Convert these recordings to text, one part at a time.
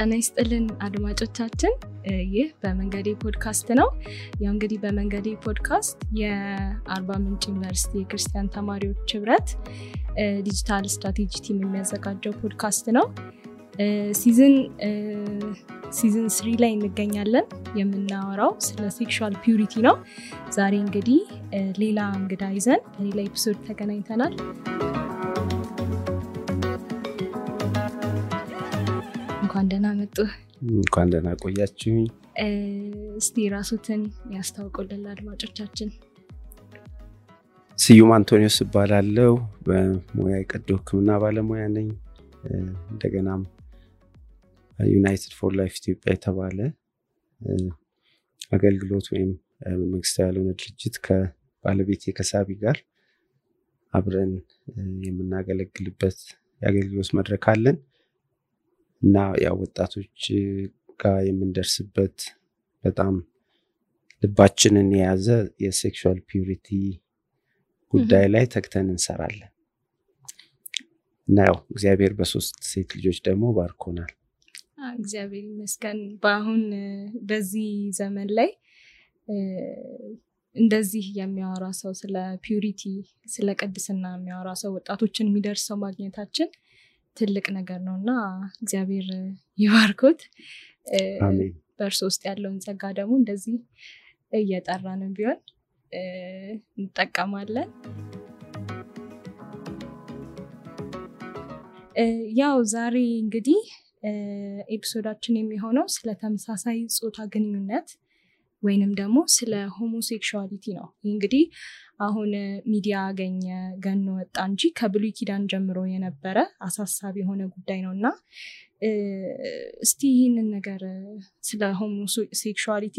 ጤና ይስጥልን አድማጮቻችን ይህ በመንገዴ ፖድካስት ነው። ያው እንግዲህ በመንገዴ ፖድካስት የአርባ ምንጭ ዩኒቨርሲቲ የክርስቲያን ተማሪዎች ህብረት ዲጂታል ስትራቴጂ ቲም የሚያዘጋጀው ፖድካስት ነው። ሲዝን 3 ላይ እንገኛለን። የምናወራው ስለ ሴክሹዋል ፒዩሪቲ ነው። ዛሬ እንግዲህ ሌላ እንግዳ ይዘን ሌላ ኤፒሶድ ተገናኝተናል። እንኳን ደህና መጡ። እንኳን ደህና ቆያችሁኝ። እስቲ ራስዎትን ያስተዋውቁልን አድማጮቻችን። ስዩም አንቶኒዮስ እባላለሁ። በሙያ የቀዶ ሕክምና ባለሙያ ነኝ። እንደገናም ዩናይትድ ፎር ላይፍ ኢትዮጵያ የተባለ አገልግሎት ወይም መንግስታዊ ያልሆነ ድርጅት ከባለቤቴ ከሳቢ ጋር አብረን የምናገለግልበት የአገልግሎት መድረክ አለን እና ያው ወጣቶች ጋር የምንደርስበት በጣም ልባችንን የያዘ የሴክሹዋል ፒዩሪቲ ጉዳይ ላይ ተግተን እንሰራለን እና ያው እግዚአብሔር በሶስት ሴት ልጆች ደግሞ ባርኮናል። እግዚአብሔር ይመስገን። በአሁን በዚህ ዘመን ላይ እንደዚህ የሚያወራ ሰው ስለ ፒዩሪቲ ስለ ቅድስና የሚያወራ ሰው ወጣቶችን የሚደርሰው ማግኘታችን ትልቅ ነገር ነውና እግዚአብሔር ይባርኮት። አሜን። በእርሱ ውስጥ ያለውን ጸጋ ደግሞ እንደዚህ እየጠራን ቢሆን እንጠቀማለን። ያው ዛሬ እንግዲህ ኤፒሶዳችን የሚሆነው ስለ ተመሳሳይ ጾታ ግንኙነት ወይንም ደግሞ ስለ ሆሞሴክሹዋሊቲ ነው። እንግዲህ አሁን ሚዲያ ገኖ ወጣ እንጂ ከብሉይ ኪዳን ጀምሮ የነበረ አሳሳቢ የሆነ ጉዳይ ነውና እስቲ ይህንን ነገር ስለ ሆሞሴክሹዋሊቲ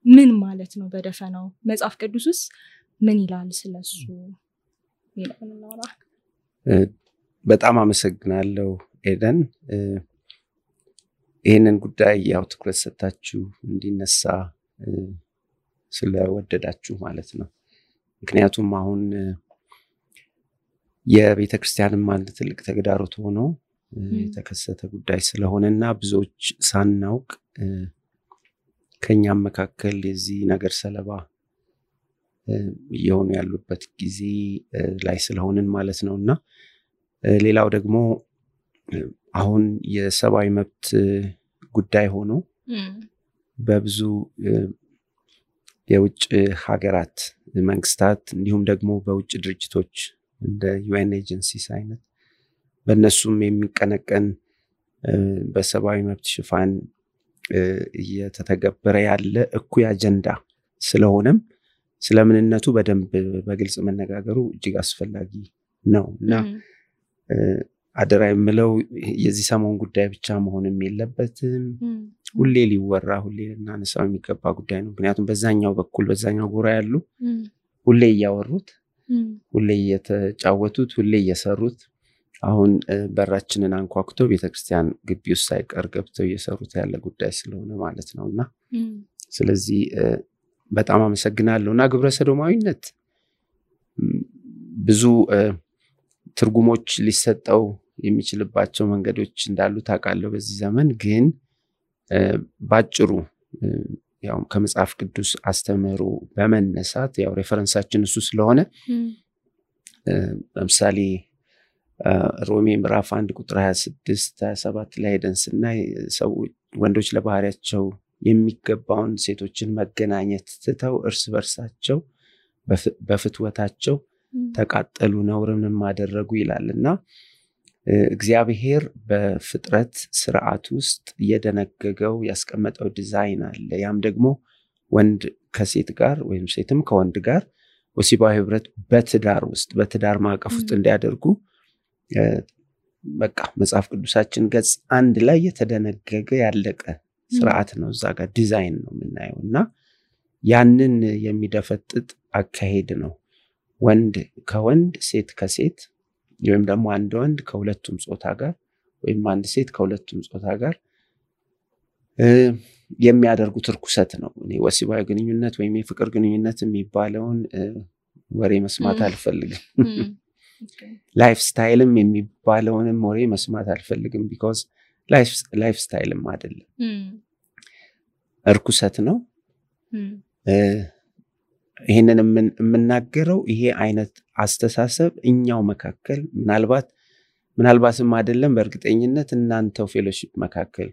ምን ማለት ነው በደፈናው መጽሐፍ ቅዱስስ ምን ይላል ስለሱ ይላልና። በጣም አመሰግናለሁ ኤደን። ይሄንን ጉዳይ ያው ትኩረት ሰጣችሁ እንዲነሳ ስለወደዳችሁ ማለት ነው። ምክንያቱም አሁን የቤተክርስቲያንም አንድ ትልቅ ተግዳሮት ሆኖ የተከሰተ ጉዳይ ስለሆነና ብዙዎች ሳናውቅ ከኛም መካከል የዚህ ነገር ሰለባ የሆኑ ያሉበት ጊዜ ላይ ስለሆነን ማለት ነውና ሌላው ደግሞ አሁን የሰብአዊ መብት ጉዳይ ሆኖ በብዙ የውጭ ሀገራት መንግስታት እንዲሁም ደግሞ በውጭ ድርጅቶች እንደ ዩኤን ኤጀንሲስ አይነት በእነሱም የሚቀነቀን በሰብአዊ መብት ሽፋን እየተተገበረ ያለ እኩይ አጀንዳ ስለሆነም ስለምንነቱ በደንብ በግልጽ መነጋገሩ እጅግ አስፈላጊ ነው እና አደራ የምለው የዚህ ሰሞን ጉዳይ ብቻ መሆንም የለበትም። ሁሌ ሊወራ ሁሌ እናነሳው የሚገባ ጉዳይ ነው። ምክንያቱም በዛኛው በኩል በዛኛው ጎራ ያሉ ሁሌ ያወሩት ሁሌ የተጫወቱት ሁሌ እየሰሩት አሁን በራችንን አንኳኩቶ ቤተክርስቲያን ግቢ ውስጥ ሳይቀር ገብተው እየሰሩት ያለ ጉዳይ ስለሆነ ማለት ነውና ስለዚህ በጣም አመሰግናለሁና ግብረ ሰዶማዊነት ብዙ ትርጉሞች ሊሰጠው የሚችልባቸው መንገዶች እንዳሉ ታውቃለህ። በዚህ ዘመን ግን ባጭሩ ያው ከመጽሐፍ ቅዱስ አስተምህሮ በመነሳት ያው ሬፈረንሳችን እሱ ስለሆነ ለምሳሌ ሮሜ ምዕራፍ 1 ቁጥር 26-27 ላይ ደንስና ሰው ወንዶች ለባህሪያቸው የሚገባውን ሴቶችን መገናኘት ትተው እርስ በርሳቸው በፍትወታቸው ተቃጠሉ ነውርንም አደረጉ ይላልና እግዚአብሔር በፍጥረት ስርዓት ውስጥ የደነገገው ያስቀመጠው ዲዛይን አለ። ያም ደግሞ ወንድ ከሴት ጋር ወይም ሴትም ከወንድ ጋር ወሲባዊ ህብረት በትዳር ውስጥ በትዳር ማዕቀፍ ውስጥ እንዲያደርጉ በቃ መጽሐፍ ቅዱሳችን ገጽ 1 ላይ የተደነገገ ያለቀ ስርዓት ነው። እዛ ጋር ዲዛይን ነው የምናየውና ያንን የሚደፈጥጥ አካሄድ ነው። ወንድ ከወንድ ሴት ከሴት ወይም ደግሞ አንድ ወንድ ከሁለቱም ጾታ ጋር ወይም አንድ ሴት ከሁለቱም ጾታ ጋር የሚያደርጉት ርኩሰት ነው። እኔ ወሲባዊ ግንኙነት ወይም የፍቅር ግንኙነት የሚባለውን ወሬ መስማት አልፈልግም። ላይፍ ስታይልም የሚባለውንም ወሬ መስማት አልፈልግም because ላይፍ ስታይልም አይደለም እርኩሰት ነው ይሄንን የምናገረው ይሄ አይነት አስተሳሰብ እኛው መካከል ምናልባትም አይደለም በእርግጠኝነት እናንተው ፌሎሺፕ መካከል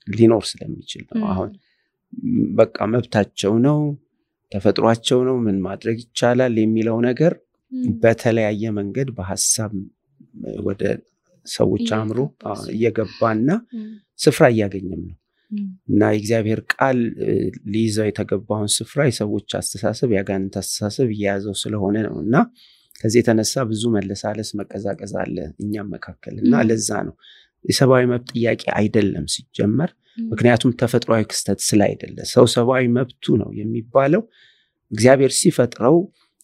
ሊኖር ስለሚችል ነው አሁን በቃ መብታቸው ነው ተፈጥሯቸው ነው ምን ማድረግ ይቻላል የሚለው ነገር በተለያየ መንገድ በሐሳብ ወደ ሰዎች አምሮ እየገባና ስፍራ እያገኘም ነው እና የእግዚአብሔር ቃል ሊይዘው የተገባውን ስፍራ የሰዎች አስተሳሰብ ያጋንንት አስተሳሰብ እየያዘው ስለሆነ ነውና ከዚህ የተነሳ ብዙ መለሳለስ መቀዛቀዝ አለ እኛም መካከልና ለዛ ነው የሰብአዊ መብት ጥያቄ አይደለም ሲጀመር ምክንያቱም ተፈጥሯዊ ክስተት ስላይደለ ሰው ሰብአዊ መብቱ ነው የሚባለው እግዚአብሔር ሲፈጥረው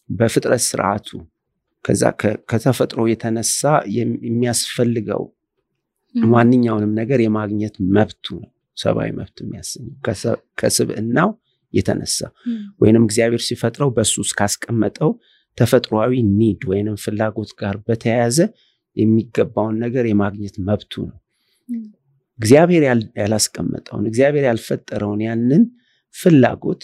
በፍጥረት ስርዓቱ ከዛ ከተፈጥሮ የተነሳ የሚያስፈልገው ማንኛውንም ነገር የማግኘት መብቱ ነው ሰብአዊ መብት የሚያሰኘው ከስብዕናው የተነሳ ወይንም እግዚአብሔር ሲፈጥረው በሱስ ካስቀመጠው ተፈጥሯዊ ኒድ ወይንም ፍላጎት ጋር በተያያዘ የሚገባውን ነገር የማግኘት መብቱ ነው እግዚአብሔር ያላስቀመጠውን እግዚአብሔር ያልፈጠረውን ያንን ፍላጎት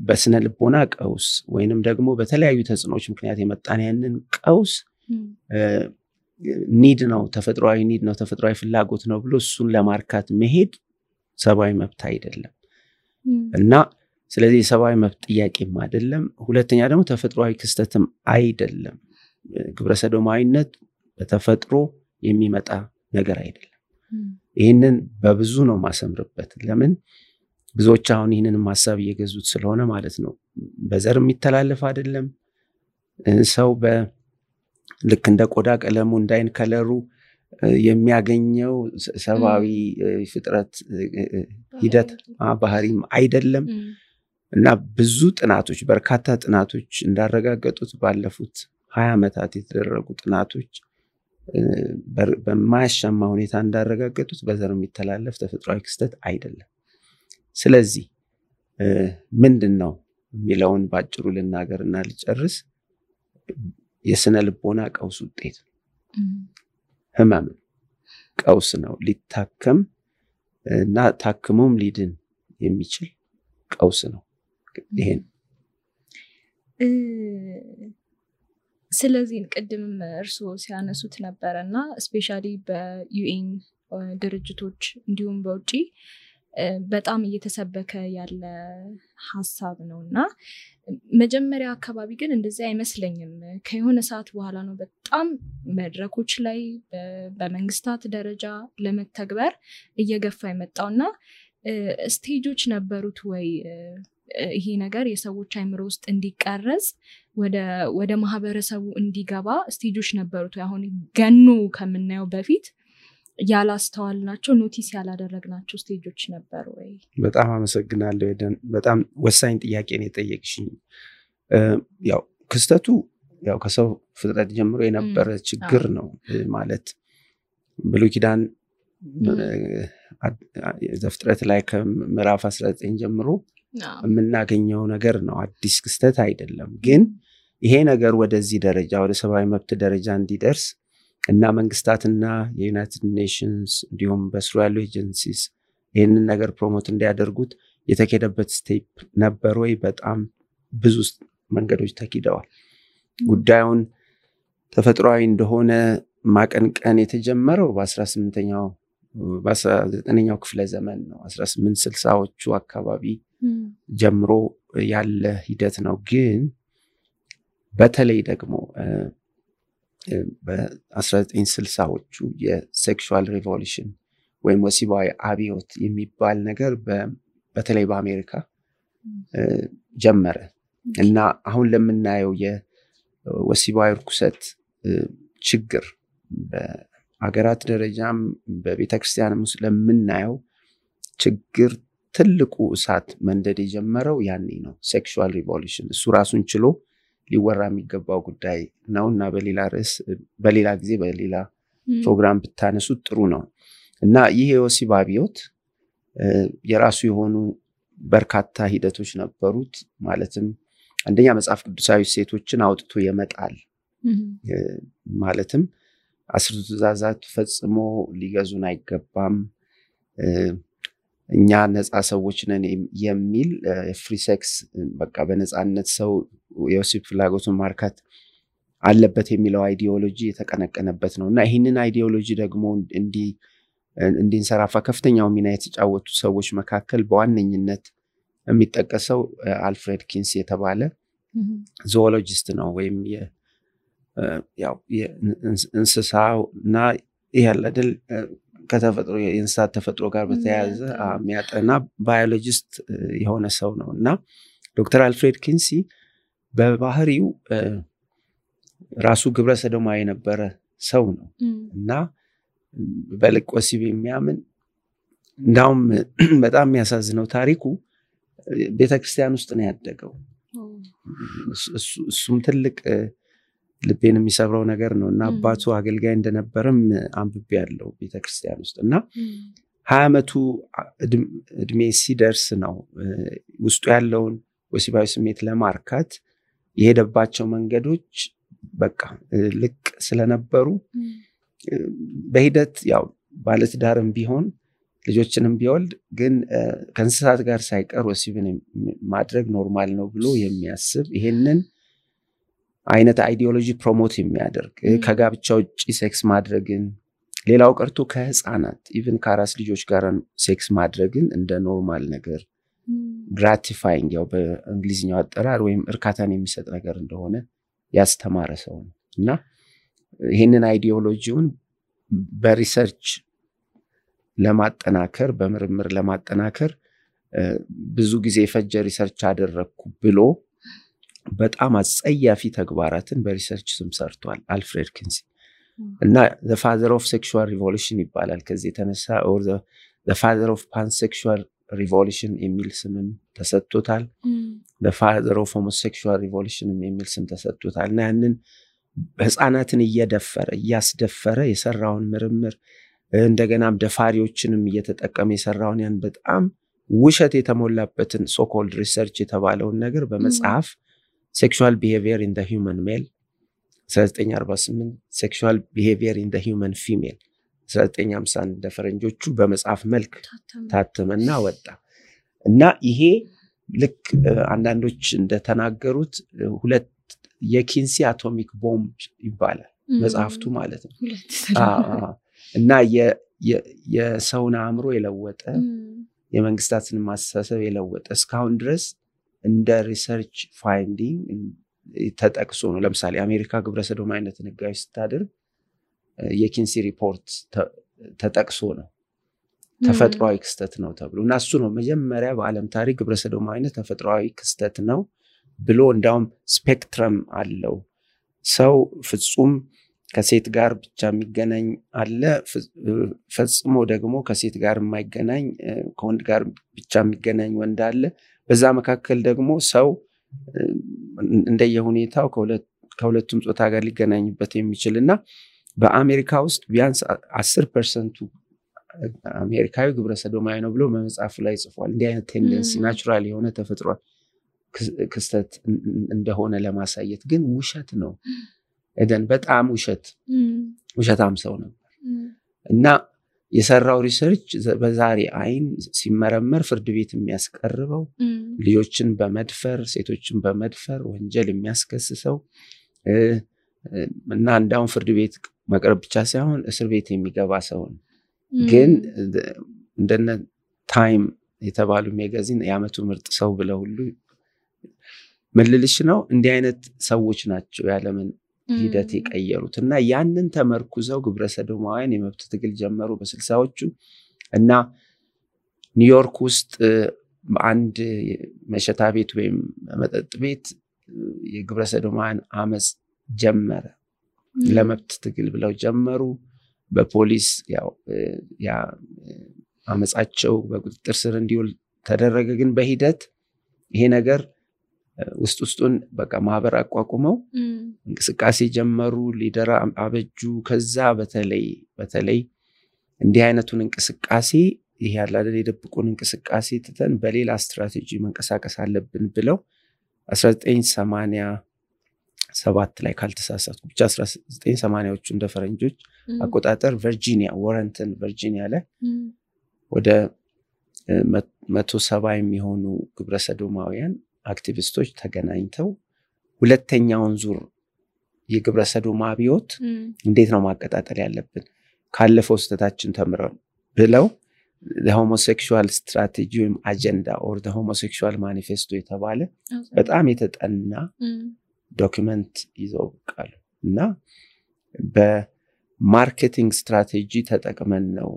በስነ ልቦና ቀውስ ወይንም ደግሞ በተለያዩ ተጽዕኖች ምክንያት የመጣን ያንን ቀውስ ኒድ ነው ተፈጥሯዊ ኒድ ነው ተፈጥሯዊ ፍላጎት ነው ብሎ እሱን ለማርካት መሄድ ሰብአዊ መብት አይደለም እና ስለዚህ ሰብአዊ መብት ጥያቄም አይደለም ሁለተኛ ደግሞ ተፈጥሯዊ ክስተትም አይደለም ግብረ ሰዶማዊነት በተፈጥሮ የሚመጣ ነገር አይደለም ይሄንን በብዙ ነው ማሰምርበት ለምን ብዙዎች አሁን ይሄንን ማሳብ እየገዙት ስለሆነ ማለት ነው በዘር የሚተላለፍ አይደለም ሰው ልክ እንደ ቆዳ ቀለሙ እንዳይን ከለሩ የሚያገኘው ሰብአዊ ፍጥረት ሂደት ባህሪም አይደለም እና ብዙ ጥናቶች በርካታ ጥናቶች እንዳረጋገጡት ባለፉት 20 ዓመታት የተደረጉ ጥናቶች በማያሻማ ሁኔታ እንዳረጋገጡት በዘር የሚተላለፍ ተፈጥሯዊ ክስተት አይደለም ስለዚህ ምንድነው የሚለውን ባጭሩ ልናገርና ልጨርስ የስነ ልቦና ቀውስ ውጤት ህመም ቀውስ ነው ሊታከም እና ታክሞም ሊድን የሚችል ቀውስ ነው ይሄን ስለዚህ ቅድም እርሶ ሲያነሱት ነበርና ስፔሻሊ በዩኤን ድርጅቶች እንዲሁም በውጪ በጣም እየተሰበከ ያለ ሐሳብ ነውና መጀመሪያ አካባቢ ግን እንደዚህ አይመስለኝም ከሆነ ሰዓት በኋላ ነው በጣም መድረኮች ላይ በመንግስታት ደረጃ ለመተግበር እየገፋ የመጣውና ስቴጆች ነበሩት ወይ ይሄ ነገር የሰዎች አይምሮ ውስጥ እንዲቀረጽ ወደ ማህበረሰቡ እንዲገባ ስቴጆች ነበሩት ወይ አሁን ገኑ ከምናየው በፊት ያላስተዋልናቸው ኖቲስ ያላደረግናቸው ስቴጆች ነበሩ ወይ በጣም አመሰግናለሁ ኤደን በጣም ወሳኝ ጥያቄ ነው የጠየቅሽኝ ያው ክስተቱ ያው ከሰው ፍጥረት ጀምሮ የነበረ ችግር ነው ማለት ብሉይ ኪዳን ዘፍጥረት ላይ ከምዕራፍ 19 ጀምሮ የምናገኘው ነገር ነው አዲስ ክስተት አይደለም ግን ይሄ ነገር ወደዚህ ደረጃ ወደ ሰብአዊ መብት ደረጃ እንዲደርስ እና መንግስታትና የዩናይትድ ኔሽንስ እንዲሁም በስሩ ያሉ ኤጀንሲስ ይህንን ነገር ፕሮሞት እንዲያደርጉት የተከደበት ስቴፕ ነበር ወይ በጣም ብዙ መንገዶች ተኪደዋል ጉዳዩን ተፈጥሯዊ እንደሆነ ማቀንቀን የተጀመረው በ19ኛው ክፍለ ዘመን ነው 1860ዎቹ አካባቢ ጀምሮ ያለ ሂደት ነው ግን በተለይ ደግሞ በ1960ዎቹ የሴክሹዋል ሪቮሉሽን ወይም ወሲባዊ አብዮት የሚባል ነገር በተለይ በአሜሪካ ጀመረ እና አሁን ለምናየው የወሲባዊ ርኩሰት ችግር በአገራት ደረጃም በቤተክርስቲያንም ውስጥ ለምናየው ችግር ትልቁ እሳት መንደድ የጀመረው ያኔ ነው ሴክሹዋል ሪቮሉሽን እሱ ራሱን ችሎ ሊወራ የሚገባው ጉዳይ ነውና በሌላ ርዕስ በሌላ ጊዜ በሌላ ፕሮግራም ብታነሱት ጥሩ ነው እና ይሄ የወሲብ አብዮት የራሱ የሆኑ በርካታ ሂደቶች ነበሩት ማለትም አንደኛ መጽሐፍ ቅዱሳዊ ሴቶችን አውጥቶ የመጣል ማለትም 10 ትእዛዛት ፈጽሞ ሊገዙን አይገባም፣ እኛ ነፃ ሰዎች ነን የሚል ፍሪ ሴክስ በቃ በነፃነት ሰው የወሲብ ፍላጎቱን ማርካት አለበት የሚለው አይዲዮሎጂ የተቀነቀነበት ነውና ይህንን አይዲዮሎጂ ደግሞ እንዲንሰራፋ ከፍተኛው ሚና የተጫወቱ ሰዎች መካከል በዋነኝነት የሚጠቀሰው አልፍሬድ ኪንሲ የተባለ ዞኦሎጂስት ነው። ወይም ያው የእንስሳና ያለደል ከተፈጥሮ የእንስሳት ተፈጥሮ ጋር በተያያዘ የሚያጠና ባዮሎጂስት የሆነ ሰው ነው እና ዶክተር አልፍሬድ ኪንሲ በባህሪው ራሱ ግብረ ሰዶማዊ የነበረ ሰው ነው እና በልቅ ወሲብ የሚያምን እንዳውም በጣም የሚያሳዝነው ታሪኩ ቤተክርስቲያን ውስጥ ነው ያደገው። እሱም ትልቅ ልቤን የሚሰብረው ነገር ነው እና አባቱ አገልጋይ እንደነበረም አንብቤ ያለው ቤተክርስቲያን ውስጥ እና 20 ዓመቱ እድሜ ሲደርስ ነው ውስጡ ያለውን ወሲባዊ ስሜት ለማርካት የሄደባቸው መንገዶች በቃ ልቅ ስለነበሩ በሂደት ያው ባለትዳርም ቢሆን ልጆችንም ቢወልድ ግን ከእንስሳት ጋር ሳይቀር ወሲብን ማድረግ ኖርማል ነው ብሎ የሚያስብ ይሄንን አይነት አይዲዮሎጂ ፕሮሞት የሚያደርግ ከጋብቻ ውጪ ሴክስ ማድረግን ሌላው ቀርቶ ከህፃናት ኢቭን ከአራስ ልጆች ጋር ሴክስ ማድረግን እንደ ኖርማል ነገር ግራቲፋይንግ ያው በእንግሊዝኛው አጠራር ወይም እርካታን የሚሰጥ ነገር እንደሆነ ያስተማረ ሰው ነው እና ይሄንን አይዲዮሎጂውን በሪሰርች ለማጠናከር በምርምር ለማጠናከር ብዙ ጊዜ ፈጀ ሪሰርች አደረኩ ብሎ በጣም አጸያፊ ተግባራትን በሪሰርች ስም ሰርቷል አልፍሬድ ኪንሲ እና the father of sexual revolution ይባላል። ከዚህ የተነሳ or the father of pansexual revolution የሚል ስምም ተሰጥቶታል። the father of homosexual revolution የሚል ስም ተሰጥቶታል እና ያንን ህፃናትን እያስደፈረ የሰራውን ምርምር እንደገናም ደፋሪዎችንም እየተጠቀመ የሰራውን ያን በጣም ውሸት የተሞላበትን so called research የተባለውን ነገር በመጽሐፍ sexual behavior in the human male 1948 sexual behavior in the human female 1951 ደፈረንጆቹ በመጽሐፍ መልክ ታተመና ወጣ እና ይሄ ልክ አንዳንዶች እንደተናገሩት ሁለት የኪንሲ አቶሚክ ቦምብ ይባላል መጽሐፍቱ ማለት ነው እና የሰውን አእምሮ የለወጠ የመንግስታትን ማስተሳሰብ የለወጠ እስካሁን ድረስ እንደ ሪሰርች ፋይንዲንግ ተጠቅሶ ነው። ለምሳሌ አሜሪካ ግብረ ሰዶማዊነትን ህጋዊ ስታደርግ የኪንሲ ሪፖርት ተጠቅሶ ነው ተፈጥሯዊ ክስተት ነው ተብሎ እና እሱ ነው መጀመሪያ በዓለም ታሪክ ግብረ ሰዶማዊነት ተፈጥሯዊ ክስተት ነው ብሎ እንዳውም ስፔክትረም አለው ሰው ፍጹም ከሴት ጋር ብቻ የሚገናኝ አለ ፈጽሞ ደግሞ ከሴት ጋር የማይገናኝ ከወንድ ጋር ብቻ የሚገናኝ ወንድ አለ በዛ መካከል ደግሞ ሰው እንደየሁኔታው ከሁለቱም ጾታ ጋር ሊገናኝበት የሚችልና በአሜሪካ ውስጥ ቢያንስ 10% አሜሪካዊ ግብረ ሰዶማዊ ነው ብሎ በመጽሐፉ ላይ ጽፏል። እንዲህ አይነት ቴንደንሲ ናቹራል የሆነ ተፈጥሮ ክስተት እንደሆነ ለማሳየት ግን ውሸት ነው እደን በጣም ውሸታም ሰው ነበር እና የሰራው ሪሰርች በዛሬ አይን ሲመረመር ፍርድ ቤት የሚያስቀርበው ልጆችን በመድፈር ሴቶችን በመድፈር ወንጀል የሚያስከስሰው እና እንዳውም ፍርድ ቤት መቅረብ ብቻ ሳይሆን እስር ቤት የሚገባ ሰው ነው። ግን እንደነ ታይም የተባሉ ሜጋዚን የዓመቱ ምርጥ ሰው ብለው ሁሉ መልልሽ ነው እንዲህ አይነት ሰዎች ናቸው ያለምን ሂደት የቀየሩት እና ያንን ተመርኩዘው ግብረ ሰዶማውያን የመብት ትግል ጀመሩ በ60ዎቹ እና ኒውዮርክ ውስጥ አንድ መሸታ ቤት ወይም መጠጥ ቤት የግብረ ሰዶማውያን አመጽ ጀመረ ለመብት ትግል ብለው ጀመሩ በፖሊስ ያ አመጻቸው በቁጥጥር ስር እንዲውል ተደረገ ግን በሂደት ይሄ ነገር ውስጡን በቃ ማህበር አቋቁመው እንቅስቃሴ ጀመሩ ሊደር አበጁ ከዛ በተለይ እንዲህ አይነቱን እንቅስቃሴ ይሄ ያላለ የደብቁን እንቅስቃሴ ትተን በሌላ ስትራቴጂ መንቀሳቀስ አለብን ብለው 1987 7 ላይ ካልተሳሳትኩ ብቻ 1980ዎቹ እንደ ፈረንጆች አቆጣጠር ቨርጂኒያ ዋረንተን ቨርጂኒያ ላይ ወደ 170 የሚሆኑ ግብረሰዶማውያን አክቲቪስቶች ተገናኝተው ሁለተኛውን ዙር የግብረሰዶማ አብዮት እንዴት ነው ማቀጣጠል ያለብን ካለፈው ስተታችን ተምረን ብለው the homosexual strategy or agenda or the homosexual manifesto የተባለ በጣም የተጠና ዶክመንት ይዘው ቃል እና በማርኬቲንግ ስትራቴጂ ተጠቅመን ነው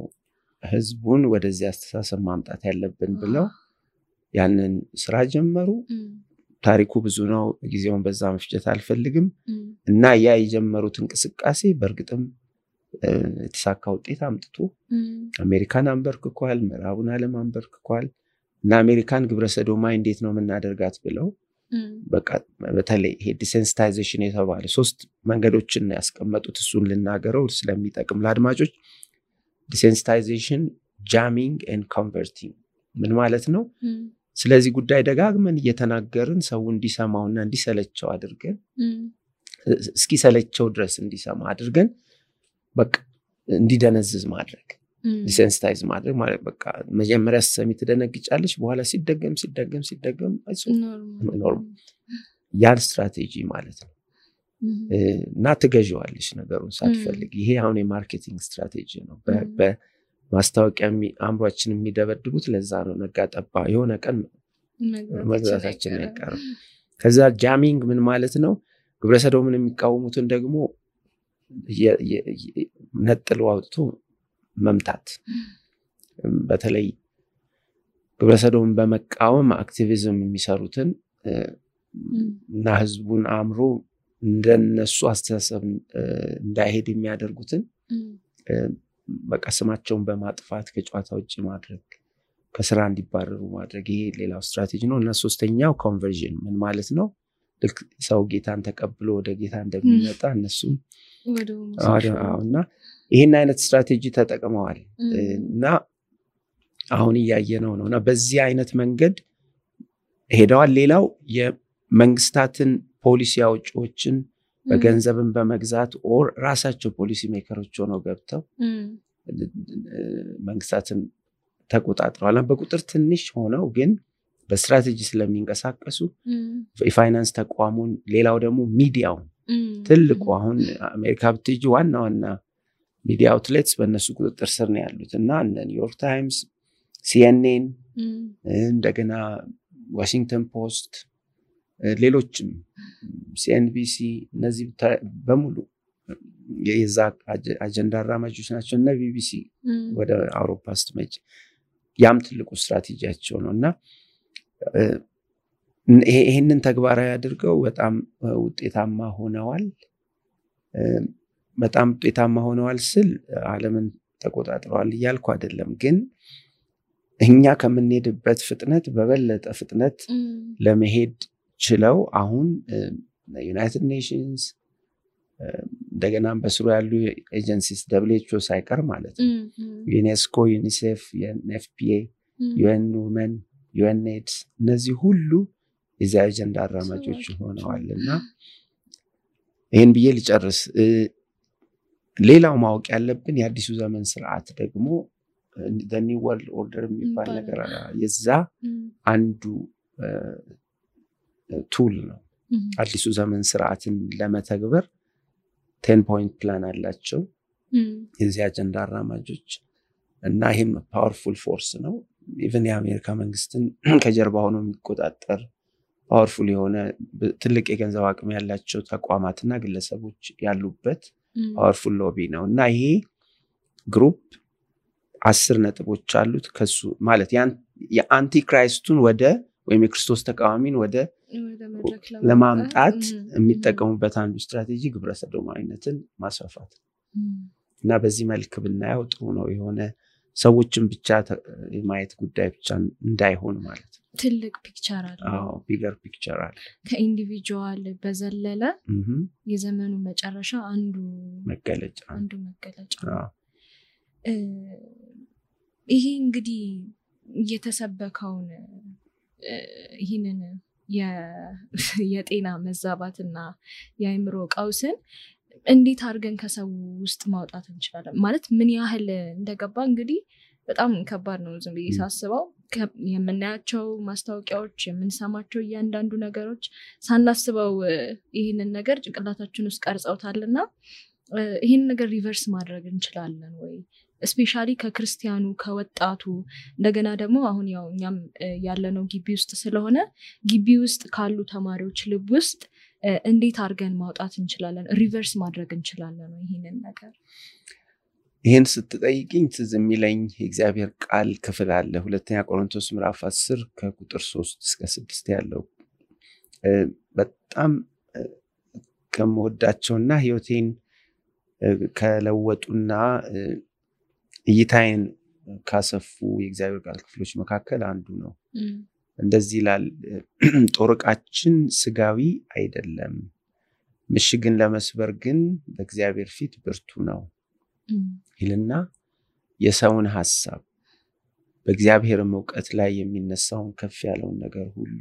ህዝቡን ወደዚህ አስተሳሰብ ማምጣት ያለብን ብለው ያንን ስራ ጀመሩ ታሪኩ ብዙ ነው ጊዜውን በዛ መፍጀት አልፈልግም እና ያ የጀመሩት እንቅስቃሴ በርግጥም የተሳካ ውጤት አምጥቶ አሜሪካን አንበርክኳል ምዕራቡን ዓለም አንበርክኳል እና አሜሪካን ግብረሰዶማይ እንዴት ነው የምናደርጋት ብለው በቃ በተለይ ይሄ ዲሴንሲታይዜሽን የተባለ 3 መንገዶችን ያስቀመጡት እሱን ልናገረው ስለሚጠቅም ለአድማጮች ዲሴንሲታይዜሽን ጃሚንግ ኤንድ ኮንቨርቲንግ ምን ማለት ነው ስለዚህ ጉዳይ ደጋግመን እየተናገርን ሰው እንዲሰማውና እንዲሰለቸው አድርገን እስኪ ሰለቸው ድረስ እንዲሰማ አድርገን በቃ እንዲደነዝዝ ማድረግ ዲሴንሲታይዝ ማድረግ ማለት በቃ መጀመሪያ ሰሚ ተደነግጫለሽ በኋላ ሲደገም ኖርማል ያን ስትራቴጂ ማለት ነው እና ትገዢዋለሽ ነገሩን ሳትፈልግ ይሄ አሁን የማርኬቲንግ ስትራቴጂ ነው በማስታወቂያ አምሯችን የሚደበድቡት ለዛ ነው ነጋጠባ የሆነ ቀን መግዛታችን ያቀር ከዛ ጃሚንግ ምን ማለት ነው ግብረሰዶምን የሚቃወሙትን ደግሞ ነጥሎ አውጥቶ መምታት በተለይ ግብረሰዶምን በመቃወም አክቲቪዝም የሚሰሩትን እና ህዝቡን አምሮ እንደነሱ አስተሳሰብ እንዳይሄድ የሚያደርጉትን በቃ ስማቸውን በማጥፋት ከጨዋታ ውጪ ማድረግ ከስራ እንዲባረሩ ማድረግ ይሄ ሌላው ስትራቴጂ ነው እና ሶስተኛው ኮንቨርዥን ምን ማለት ነው ልክ ሰው ጌታን ተቀብሎ ወደ ጌታ እንደሚመጣ እነሱም እና ይሄን አይነት ስትራቴጂ ተጠቅመዋል እና አሁን ያያየነው ነውና በዚህ አይነት መንገድ ሄደዋል ሌላው የመንግስታትን ፖሊሲ አውጪዎችን በገንዘብን በመግዛት ኦር ራሳቸው ፖሊሲ ሜከሮች ሆነው ገብተው መንግስታትን ተቆጣጥረዋል በቁጥር ትንሽ ሆነው ግን በስትራቴጂ ስለሚንቀሳቀሱ የፋይናንስ ተቋሙን ሌላው ደግሞ ሚዲያው ትልቁ አሁን አሜሪካ ብትጂ ዋና ሚዲያ አውትሌትስ በእነሱ ቁጥጥር ስር ነው ያሉት እና ኒውዮርክ ታይምስ CNN እንደገና ዋሽንግተን ፖስት ሌሎችም CNBC እነዚህ በሙሉ የዛ አጀንዳ አራማጆች ናቸው እና BBC ወደ አውሮፓ ስትመጪ ያም ትልቁ ስትራቴጂያቸው ነውና ይሄንን ተግባራዊ አድርገው በጣም ውጤታማ ሆነዋል ስል ዓለምን ተቆጣጥረዋል እያልኩ አይደለም ግን እኛ ከምንሄድበት ፍጥነት በበለጠ ፍጥነት ለመሄድ ችለው አሁን ዩናይትድ ኔሽንስ እንደገና በስሩ ያሉ ኤጀንሲስ WHO ሳይቀር ማለት ነው ዩኔስኮ ዩኒሴፍ የኤፍፒኤ UN Women UNAIDS እነዚህ ሁሉ የዛ አጀንዳ አራማጆች ሆነዋልና ይሄን ብዬ ልጨርስ ሌላው ማወቅ ያለብን የአዲሱ ዘመን ስርዓት ደግሞ the new world order የሚባል ነገር የዛ አንዱ ቱል ነው አዲሱ ዘመን ስርዓትን ለመተግበር 10 point plan አላቸው የዚህ አጀንዳ አራማጆች እና ይሄም ፓወርፉል ፎርስ ነው ኢቭን የአሜሪካ መንግስትን ከጀርባ ሆኖ የሚቆጣጠር ፓወርፉል የሆነ ትልቅ የገንዘብ አቅም ያላቸው ተቋማትና ግለሰቦች ያሉበት ፓወርፉል ሎቢ ነው እና ይሄ ግሩፕ 10 ነጥቦች አሉት ከሱ ማለት የአንቲ ክራይስቱን ወደ ወይም የክርስቶስ ተቃዋሚን ወደ ለማምጣት የሚጠቀሙበት አንዱ ስትራቴጂ ግብረሰዶማዊነትን ማስፋፋት እና በዚህ መልክ ብናየው ጥሩ ነው የሆነ ሰዎችን ብቻ የማየት ጉዳይ ብቻ እንዳይሆን ማለት ትልቅ ፒክቸር አለ ቢገር ፒክቸር አለ ከኢንዲቪጁዋል በዘለለ የዘመኑ መጨረሻ አንዱ መገለጫ ይሄ እንግዲህ የተሰበከውን ይሄንን የጤና መዛባትና የአእምሮ ቀውስን እንዴት አድርገን ከሰው ውስጥ ማውጣት እንችላለን? ማለት ምን ያህል እንደገባ እንግዲህ በጣም ከባድ ነው። ዝም ብዬ ሳስበው የምናያቸው ማስታወቂያዎች፣ የምንሰማቸው እያንዳንዱ ነገሮች ሳናስበው ይህንን ነገር ጭንቅላታችን ውስጥ ቀርጸውታልና ይህን ነገር ሪቨርስ ማድረግ እንችላለን ወይ? ስፔሻሊ ከክርስቲያኑ ከወጣቱ እንደገና ደግሞ አሁን ያው እኛም ያለነው ግቢ ውስጥ ስለሆነ ግቢ ውስጥ ካሉ ተማሪዎች ልብ ውስጥ እንዴት አድርገን ማውጣት እንችላለን? ሪቨርስ ማድረግ እንችላለን ይህንን ነገር? ይህን ስትጠይቅኝ ትዝ የሚለኝ የእግዚአብሔር ቃል ክፍል አለ። ሁለተኛ ቆሮንቶስ ምዕራፍ 10 ከቁጥር 3 እስከ 6 ያለው በጣም ከምወዳቸውና ህይወቴን ከለወጡና እይታዬን ካሰፉ የእግዚአብሔር ቃል ክፍሎች መካከል አንዱ ነው። እንደዚህ ይላል፣ ጦር ዕቃችን ስጋዊ አይደለም፣ ምሽግን ለመስበር ግን በእግዚአብሔር ፊት ብርቱ ነው ይልና የሰውን ሐሳብ በእግዚአብሔር ዕውቀት ላይ የሚነሳውን ከፍ ያለውን ነገር ሁሉ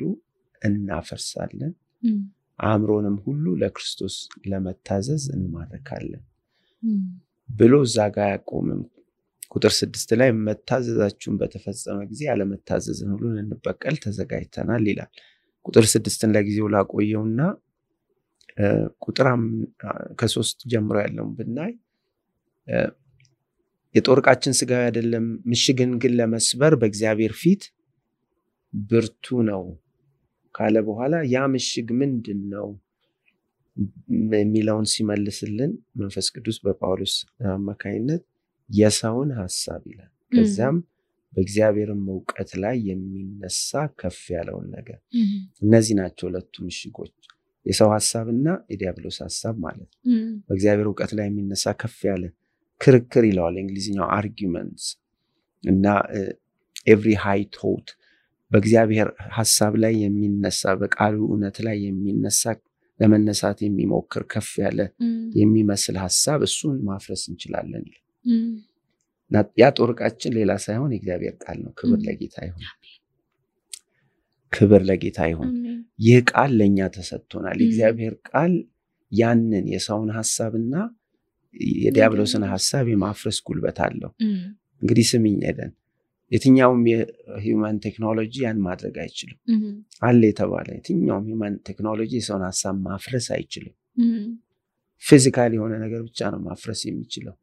እናፈርሳለን፣ አእምሮንም ሁሉ ለክርስቶስ ለመታዘዝ እንማርካለን ብሎ እዛ ጋር ያቆምም። ቁጥር 6 ላይ መታዘዛችሁን በተፈጸመ ጊዜ ያለመታዘዝን ሁሉ እንበቀል ተዘጋጅተናል ይላል። ቁጥር 6ን ለጊዜው ላቆየውና ቁጥር ከ3 ጀምሮ ያለውን ብናይ የጦር ዕቃችን ስጋዊ አይደለም፣ ምሽግን ግን ለመስበር በእግዚአብሔር ፊት ብርቱ ነው ካለ በኋላ ያ ምሽግ ምንድነው የሚለውን ሲመልስልን መንፈስ ቅዱስ በጳውሎስ አማካይነት የሰውን ሐሳብ ይላል። ከዛም በእግዚአብሔር ዕውቀት ላይ የሚነሳ ከፍ ያለውን ነገር። እነዚህ ናቸው ሁለቱ ምሽጎች፣ የሰው ሐሳብና የዲያብሎስ ሐሳብ ማለት ነው። በእግዚአብሔር ዕውቀት ላይ የሚነሳ ከፍ ያለ ክርክር ይለዋል እንግሊዝኛው አርጊውመንትስ እና every high thought በእግዚአብሔር ሐሳብ ላይ የሚነሳ በቃሉ እውነት ላይ የሚነሳ ለመነሳት የሚሞክር ከፍ ያለ የሚመስል ሐሳብ እሱን ማፍረስ እንችላለን። ያ ጦር ዕቃችን ሌላ ሳይሆን የእግዚአብሔር ቃል ነው። ክብር ለጌታ ይሁን፣ ክብር ለጌታ ይሁን። ይህ ቃል ለኛ ተሰጥቶናል። የእግዚአብሔር ቃል ያንን የሰውን ሐሳብና የዲያብሎስን ሐሳብ የማፍረስ ጉልበት አለው። እንግዲህ ስምኝ ሄደን የትኛውም የሂውማን ቴክኖሎጂ ያን ማድረግ አይችልም። አለ የተባለ የትኛውም ሂውማን ቴክኖሎጂ የሰውን ሐሳብ ማፍረስ አይችልም። ፊዚካሊ የሆነ ነገር ብቻ ነው ማፍረስ የሚችለው።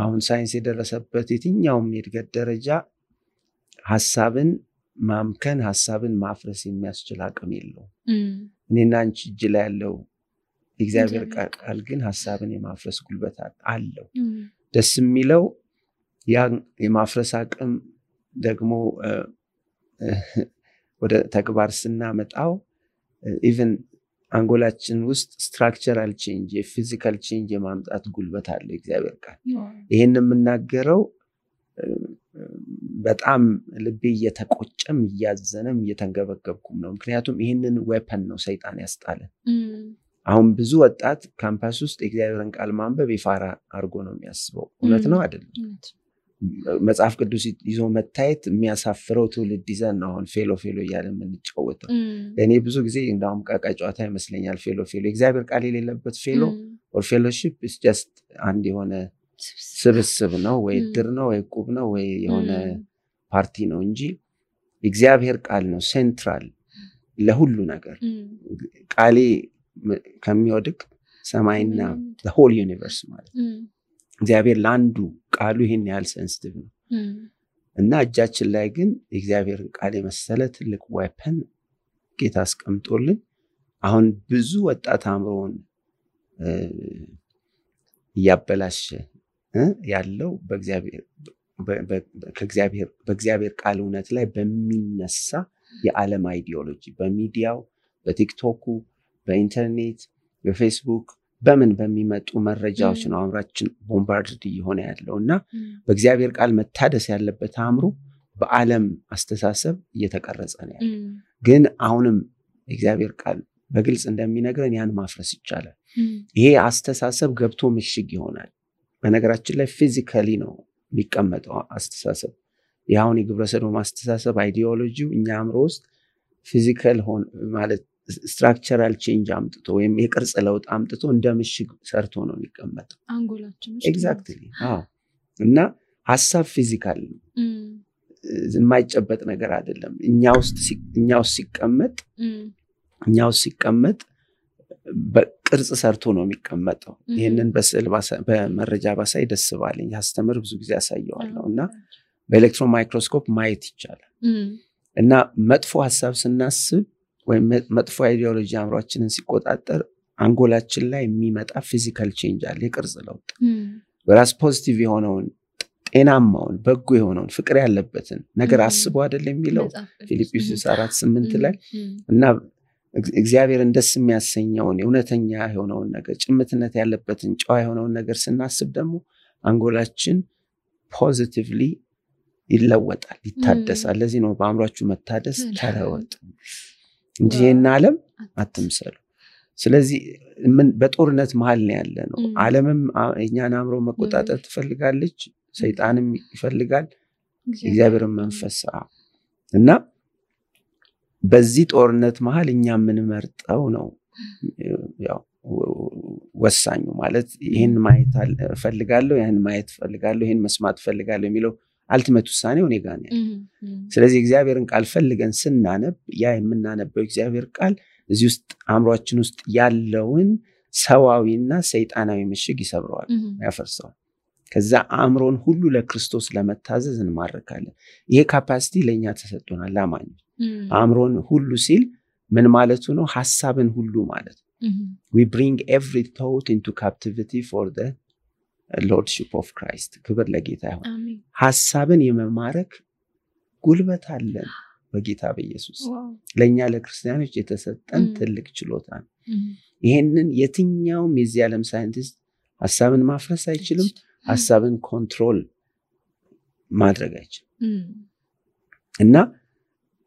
አሁን ሳይንስ የደረሰበት የትኛውም የእድገት ደረጃ ሐሳብን ማምከን ሐሳብን ማፍረስ የሚያስችል አቅም የለውም። እኔና አንቺ እጅ ላይ ያለው የእግዚአብሔር ቃል ግን ሐሳብን የማፍረስ ጉልበት አለው። ደስ የሚለው ያ የማፍረስ አቅም ደግሞ ወደ ተግባር ስናመጣው ኢቭን አንጎላችን ውስጥ ስትራክቸራል ቼንጅ የፊዚካል ቼንጅ የማምጣት ጉልበት አለው የእግዚአብሔር ቃል። ይሄን የምናገረው በጣም ልቤ እየተቆጨም እያዘነም እየተንገበገብኩም ነው። ምክንያቱም ይሄንን ዌፐን ነው ሰይጣን ያስጣለን። አሁን ብዙ ወጣት ካምፓስ ውስጥ የእግዚአብሔርን ቃል ማንበብ ይፋራ አድርጎ ነው የሚያስበው። እውነት ነው አይደለም? መጽሐፍ ቅዱስ ይዞ መታየት የሚያሳፍረው ትውልድ ይዘን ነው አሁን ፌሎ እያለ የምንጫወተው። ለእኔ ብዙ ጊዜ እንዳውም ቃቃ ጨዋታ ይመስለኛል ፌሎ የእግዚአብሔር ቃል የሌለበት ፌሎ ኦር ፌሎሺፕ ኢስ ጀስት አንድ የሆነ ስብስብ ነው ወይ ድር ነው ወይ ቁብ ነው ወይ የሆነ ፓርቲ ነው እንጂ እግዚአብሔር ቃል ነው ሴንትራል ለሁሉ ነገር። ቃሌ ከሚወድቅ ሰማይና the whole universe ማለት እግዚአብሔር ለአንዱ ቃሉ ይሄን ያህል ሴንሲቲቭ ነው እና እጃችን ላይ ግን የእግዚአብሔርን ቃል የመሰለ ትልቅ ዌፐን ጌታ አስቀምጦልን አሁን ብዙ ወጣት አእምሮውን እያበላሸ ያለው በእግዚአብሔር ቃል እውነት ላይ በሚነሳ የዓለም አይዲዮሎጂ በሚዲያው በቲክቶኩ በኢንተርኔት በፌስቡክ በምን በሚመጡ መረጃዎች ነው አእምራችን ቦምባርድ እየሆነ ያለውና በእግዚአብሔር ቃል መታደስ ያለበት አእምሮ በዓለም አስተሳሰብ እየተቀረጸ ነው ያለው። ግን አሁንም እግዚአብሔር ቃል በግልጽ እንደሚነግረን ያን ማፍረስ ይቻላል። ይሄ አስተሳሰብ ገብቶ ምሽግ ይሆናል። በነገራችን ላይ ፊዚካሊ ነው የሚቀመጠው አስተሳሰብ። ያውን የግብረ ሰዶም አስተሳሰብ አይዲዮሎጂው እኛ አእምሮ ውስጥ ፊዚካል ማለት ስትራክቸራል ቼንጅ አምጥቶ ወይም የቅርጽ ለውጥ አምጥቶ እንደ ምሽግ ሰርቶ ነው የሚቀመጠው አንጎላችን ኤግዛክትሊ እና ሐሳብ ፊዚካል ነው የማይጨበጥ ነገር አይደለም እኛ ውስጥ ሲቀመጥ በቅርጽ ሰርቶ ነው የሚቀመጠው ይሄንን በስዕል በመረጃ ባሳይ ደስ ባለኝ ያስተምር ብዙ ጊዜ ያሳየዋለሁ እና በኤሌክትሮን ማይክሮስኮፕ ማየት ይቻላል እና መጥፎ ሐሳብ ስናስብ ወይም መጥፎ አይዲዮሎጂ አምሯችንን ሲቆጣጠር አንጎላችን ላይ የሚመጣ ፊዚካል ቼንጅ አለ የቅርጽ ለውጥ ወራስ ፖዚቲቭ የሆነውን ጤናማውን በጎ የሆነውን ፍቅር ያለበትን ነገር አስቦ አይደል የሚለው ፊልጵስዩስ 4:8 ላይ እና እግዚአብሔርን ደስ የሚያሰኘውን የእውነተኛ የሆነውን ነገር ጭምትነት ያለበትን ጨዋ የሆነውን ነገር ስናስብ ደግሞ አንጎላችን ፖዚቲቭሊ ይለወጣል ይታደሳል ለዚህ ነው በአእምሯችሁ መታደስ ተለወጡ እንጂ ይሄን ዓለም አትምሰሉ ስለዚህ ምን በጦርነት መሃል ነው ያለ ነው ዓለምም እኛን አእምሮ መቆጣጠር ትፈልጋለች ሰይጣንም ይፈልጋል እግዚአብሔርም መንፈስ እና በዚህ ጦርነት መሃል እኛ ምን መርጠው ነው ያው ወሳኙ ማለት ይሄን ማየት ፈልጋለሁ ያን ማየት ፈልጋለሁ ይሄን መስማት ፈልጋለሁ የሚለው አልቲሜት ውሳኔው እኔ ጋር ነው ስለዚህ እግዚአብሔርን ቃል ፈልገን ስናነብ ያ የምናነበው እግዚአብሔር ቃል እዚህ ውስጥ አእምሮአችን ውስጥ ያለውን ሰዋዊና ሰይጣናዊ ምሽግ ይሰብረዋል ያፈርሰዋል ከዛ አእምሮን ሁሉ ለክርስቶስ ለመታዘዝ እንማርካለን ይሄ ካፓሲቲ ለኛ ተሰጥቶናል ላማኝ አእምሮን ሁሉ ሲል ምን ማለቱ ነው ሐሳብን ሁሉ ማለት we bring every thought into captivity for the lordship of Christ ክብር ለጌታ ይሁን ሐሳብን የመማረክ ጉልበት አለን በጌታ በኢየሱስ ለኛ ለክርስቲያኖች የተሰጠን ትልቅ ችሎታ ነው ይሄንን የትኛውም የዚህ ዓለም ሳይንቲስት ሐሳብን ማፍረስ አይችልም ሐሳብን ኮንትሮል ማድረግ አይችልም እና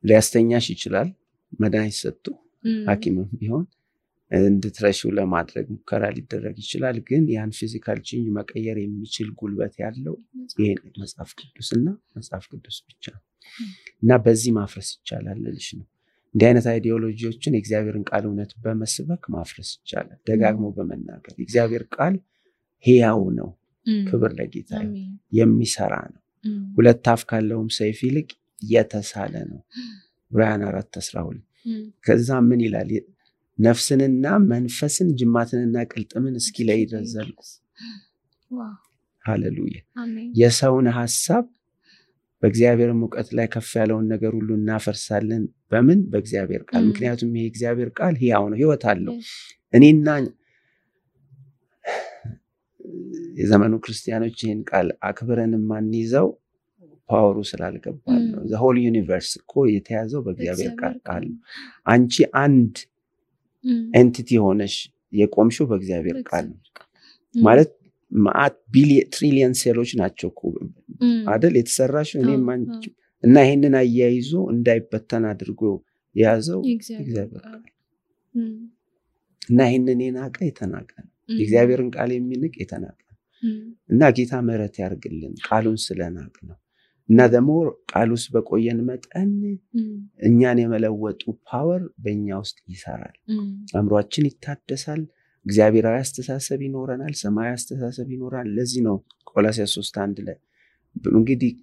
ሊያስተኛሽ ይችላል መድኃኒት ሰጥቶ ሐኪምም ቢሆን እንድትረሺው ለማድረግ ሙከራ ሊደረግ ይችላል ግን ያን ፊዚካል ቼንጅ መቀየር የሚችል ጉልበት ያለው ይሄ መጽሐፍ ቅዱስና መጽሐፍ ቅዱስ ብቻ እና በዚህ ማፍረስ ይቻላል ልልሽ ነው እንዲህ አይነት አይዲዮሎጂዎችን የእግዚአብሔርን ቃል እውነት በመስበክ ማፍረስ ይቻላል ደጋግሞ በመናገር የእግዚአብሔር ቃል ሕያው ነው ክብር ለጌታ የሚሰራ ነው ሁለት አፍ ካለውም ሰይፍ ይልቅ የተሳለ ነው ዕብራውያን 4:12 ከዛ ምን ይላል ነፍስንና መንፈስን ጅማትንና ቅልጥምን እስኪለይ ድረስ ሃሌሉያ የሰውን ሐሳብ በእግዚአብሔር ሙቀት ላይ ከፍ ያለውን ነገር ሁሉ እናፈርሳለን በምን በእግዚአብሔር ቃል ምክንያቱም ይሄ እግዚአብሔር ቃል ሕያው ነው ሕይወት አለው እኔና የዘመኑ ክርስቲያኖች ይሄን ቃል አክብረን ማንይዘው ፓወሩ ስላልገባን ነው the whole universe እኮ የተያዘው በእግዚአብሔር ቃል አንቺ አንድ ኤንቲቲ ሆነሽ የቆምሽው በእግዚአብሔር ቃል ማለት ማት ትሪሊየን ሴሎች ናቸው እኮ አይደል የተሰራሽው እኔም አንቺ እና ይሄንን አያይዞ እንዳይበተን አድርጎ ያዘው እግዚአብሔር ቃል እና ይሄንን የናቀ የተናቀ እግዚአብሔርን ቃል የሚንቅ የተናቀ እና ጌታ ምሕረት ያርግልን ቃሉን ስለናቅ ነው እና ደግሞ ቃሉስ በቆየን መጠን እኛን የመለወጡ ፓወር በእኛ ውስጥ ይሰራል አእምሮአችን ይታደሳል እግዚአብሔራዊ አስተሳሰብ ይኖረናል ሰማያዊ አስተሳሰብ ይኖራል ለዚህ ነው ቆላስይስ 3:1 ላይ እንግዲህ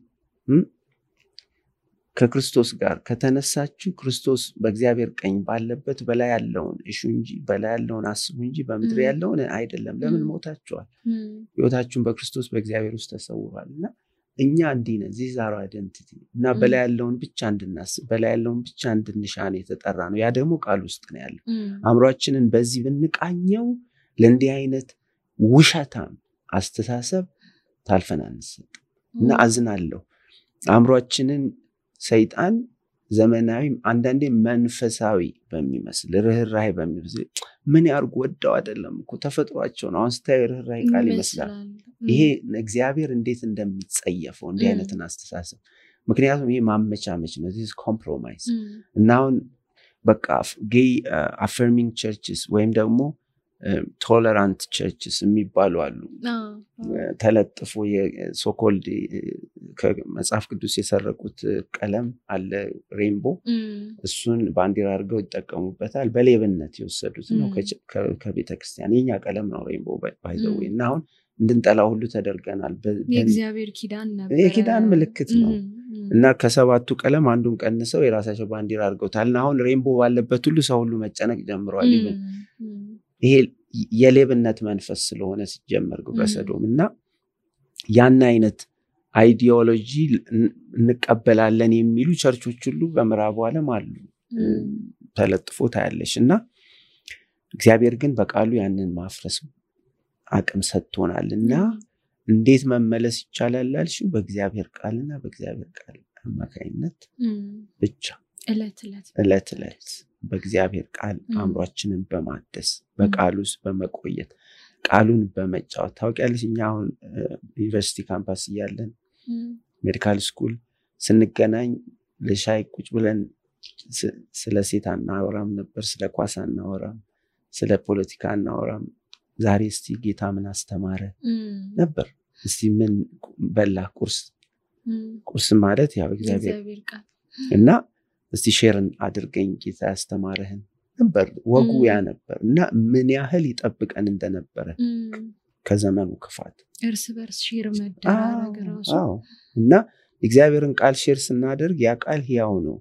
ከክርስቶስ ጋር ከተነሳችሁ ክርስቶስ በእግዚአብሔር ቀኝ ባለበት በላይ ያለውን እሹ እንጂ በላይ ያለውን አስቡ እንጂ በምድር ያለውን አይደለም ለምን ሞታችኋል ሕይወታችሁን በክርስቶስ በእግዚአብሔር ውስጥ ተሰውሯልና እኛ እንዲነ ዚዛራ አይደንቲቲ እና በላይ ያለውን ብቻ እንድናስብ በላይ ያለውን ብቻ እንድንሻን የተጠራ ነው ያ ደግሞ ቃል ውስጥ ነው ያለው አእምሮአችንን በዚህ ብንቃኘው ለእንዲህ አይነት ውሸታም አስተሳሰብ ታልፈናንስ እና አዝናለሁ አእምሮአችንን ሰይጣን ዘመናዊ አንዳንዴ መንፈሳዊ በሚመስል ርህራሄ በሚመስል ምን ያርጉ ወደው አይደለም እኮ ተፈጥሯቸው ነው አንስታይ ርህራሄ ቃል ይመስላል ይሄ እግዚአብሔር እንዴት እንደሚጸየፈው እንዲህ አይነትን አስተሳሰብ ምክንያቱም ይሄ ማመቻመች ነው this compromise እና አሁን በቃ ጌይ affirming churches ወይም ደግሞ ቶለራንት ቸርችስ የሚባሉ አሉ። ተለጥፎ የሶኮልድ ከመጽሐፍ ቅዱስ የሰረቁት ቀለም አለ ሬንቦ፣ እሱን ባንዲራ አድርገው ይጠቀሙበታል። በሌብነት የወሰዱት ነው ከቤተክርስቲያን። የኛ ቀለም ነው ሬንቦ ባይዘው እና አሁን እንድንጠላው ሁሉ ተደርገናል። የእግዚአብሔር ኪዳን ነበር፣ የኪዳን ምልክት ነው እና ከሰባቱ ቀለም አንዱን ቀንሰው የራሳቸው ባንዲራ አድርገውታል። እና አሁን ሬንቦ ባለበት ሁሉ ሰው ሁሉ መጨነቅ ጀምሯል። ይሄ የሌብነት መንፈስ ስለሆነ ሲጀመር ግብረ ሰዶም እና ያን አይነት አይዲዮሎጂ እንቀበላለን የሚሉ ቸርቾች ሁሉ በምዕራቡ ዓለም አሉ ተለጥፎ ታያለሽ። እና እግዚአብሔር ግን በቃሉ ያንን ማፍረስ አቅም ሰጥቶናል። እና እንዴት መመለስ ይቻላል አልሽው? በእግዚአብሔር ቃልና በእግዚአብሔር ቃል አማካኝነት ብቻ እለት በእግዚአብሔር ቃል አእምሯችንን በማደስ በቃሉ ውስጥ በመቆየት ቃሉን በመጫወት ታውቂያለሽ። እኛ አሁን ዩኒቨርሲቲ ካምፓስ እያለን ሜዲካል ስኩል ስንገናኝ ለሻይ ቁጭ ብለን ስለ ሴት አናወራም ነበር፣ ስለ ኳስ አናወራም፣ ስለ ፖለቲካ አናወራም። ዛሬ እስቲ ጌታ ምን አስተማረ ነበር፣ እስቲ ምን በላ ቁርስ ማለት ያው እግዚአብሔር ቃል እና እስቲ ሼርን አድርገኝ ጌታ ያስተማረህን ነበር። ወጉ ያ ነበር እና ምን ያህል ይጠብቀን እንደነበረ ከዘመኑ ክፋት እርስ በርስ ሼር መደራረግ ራሱ እና እግዚአብሔርን ቃል ሼር ስናደርግ ያ ቃል ሕያው ነው።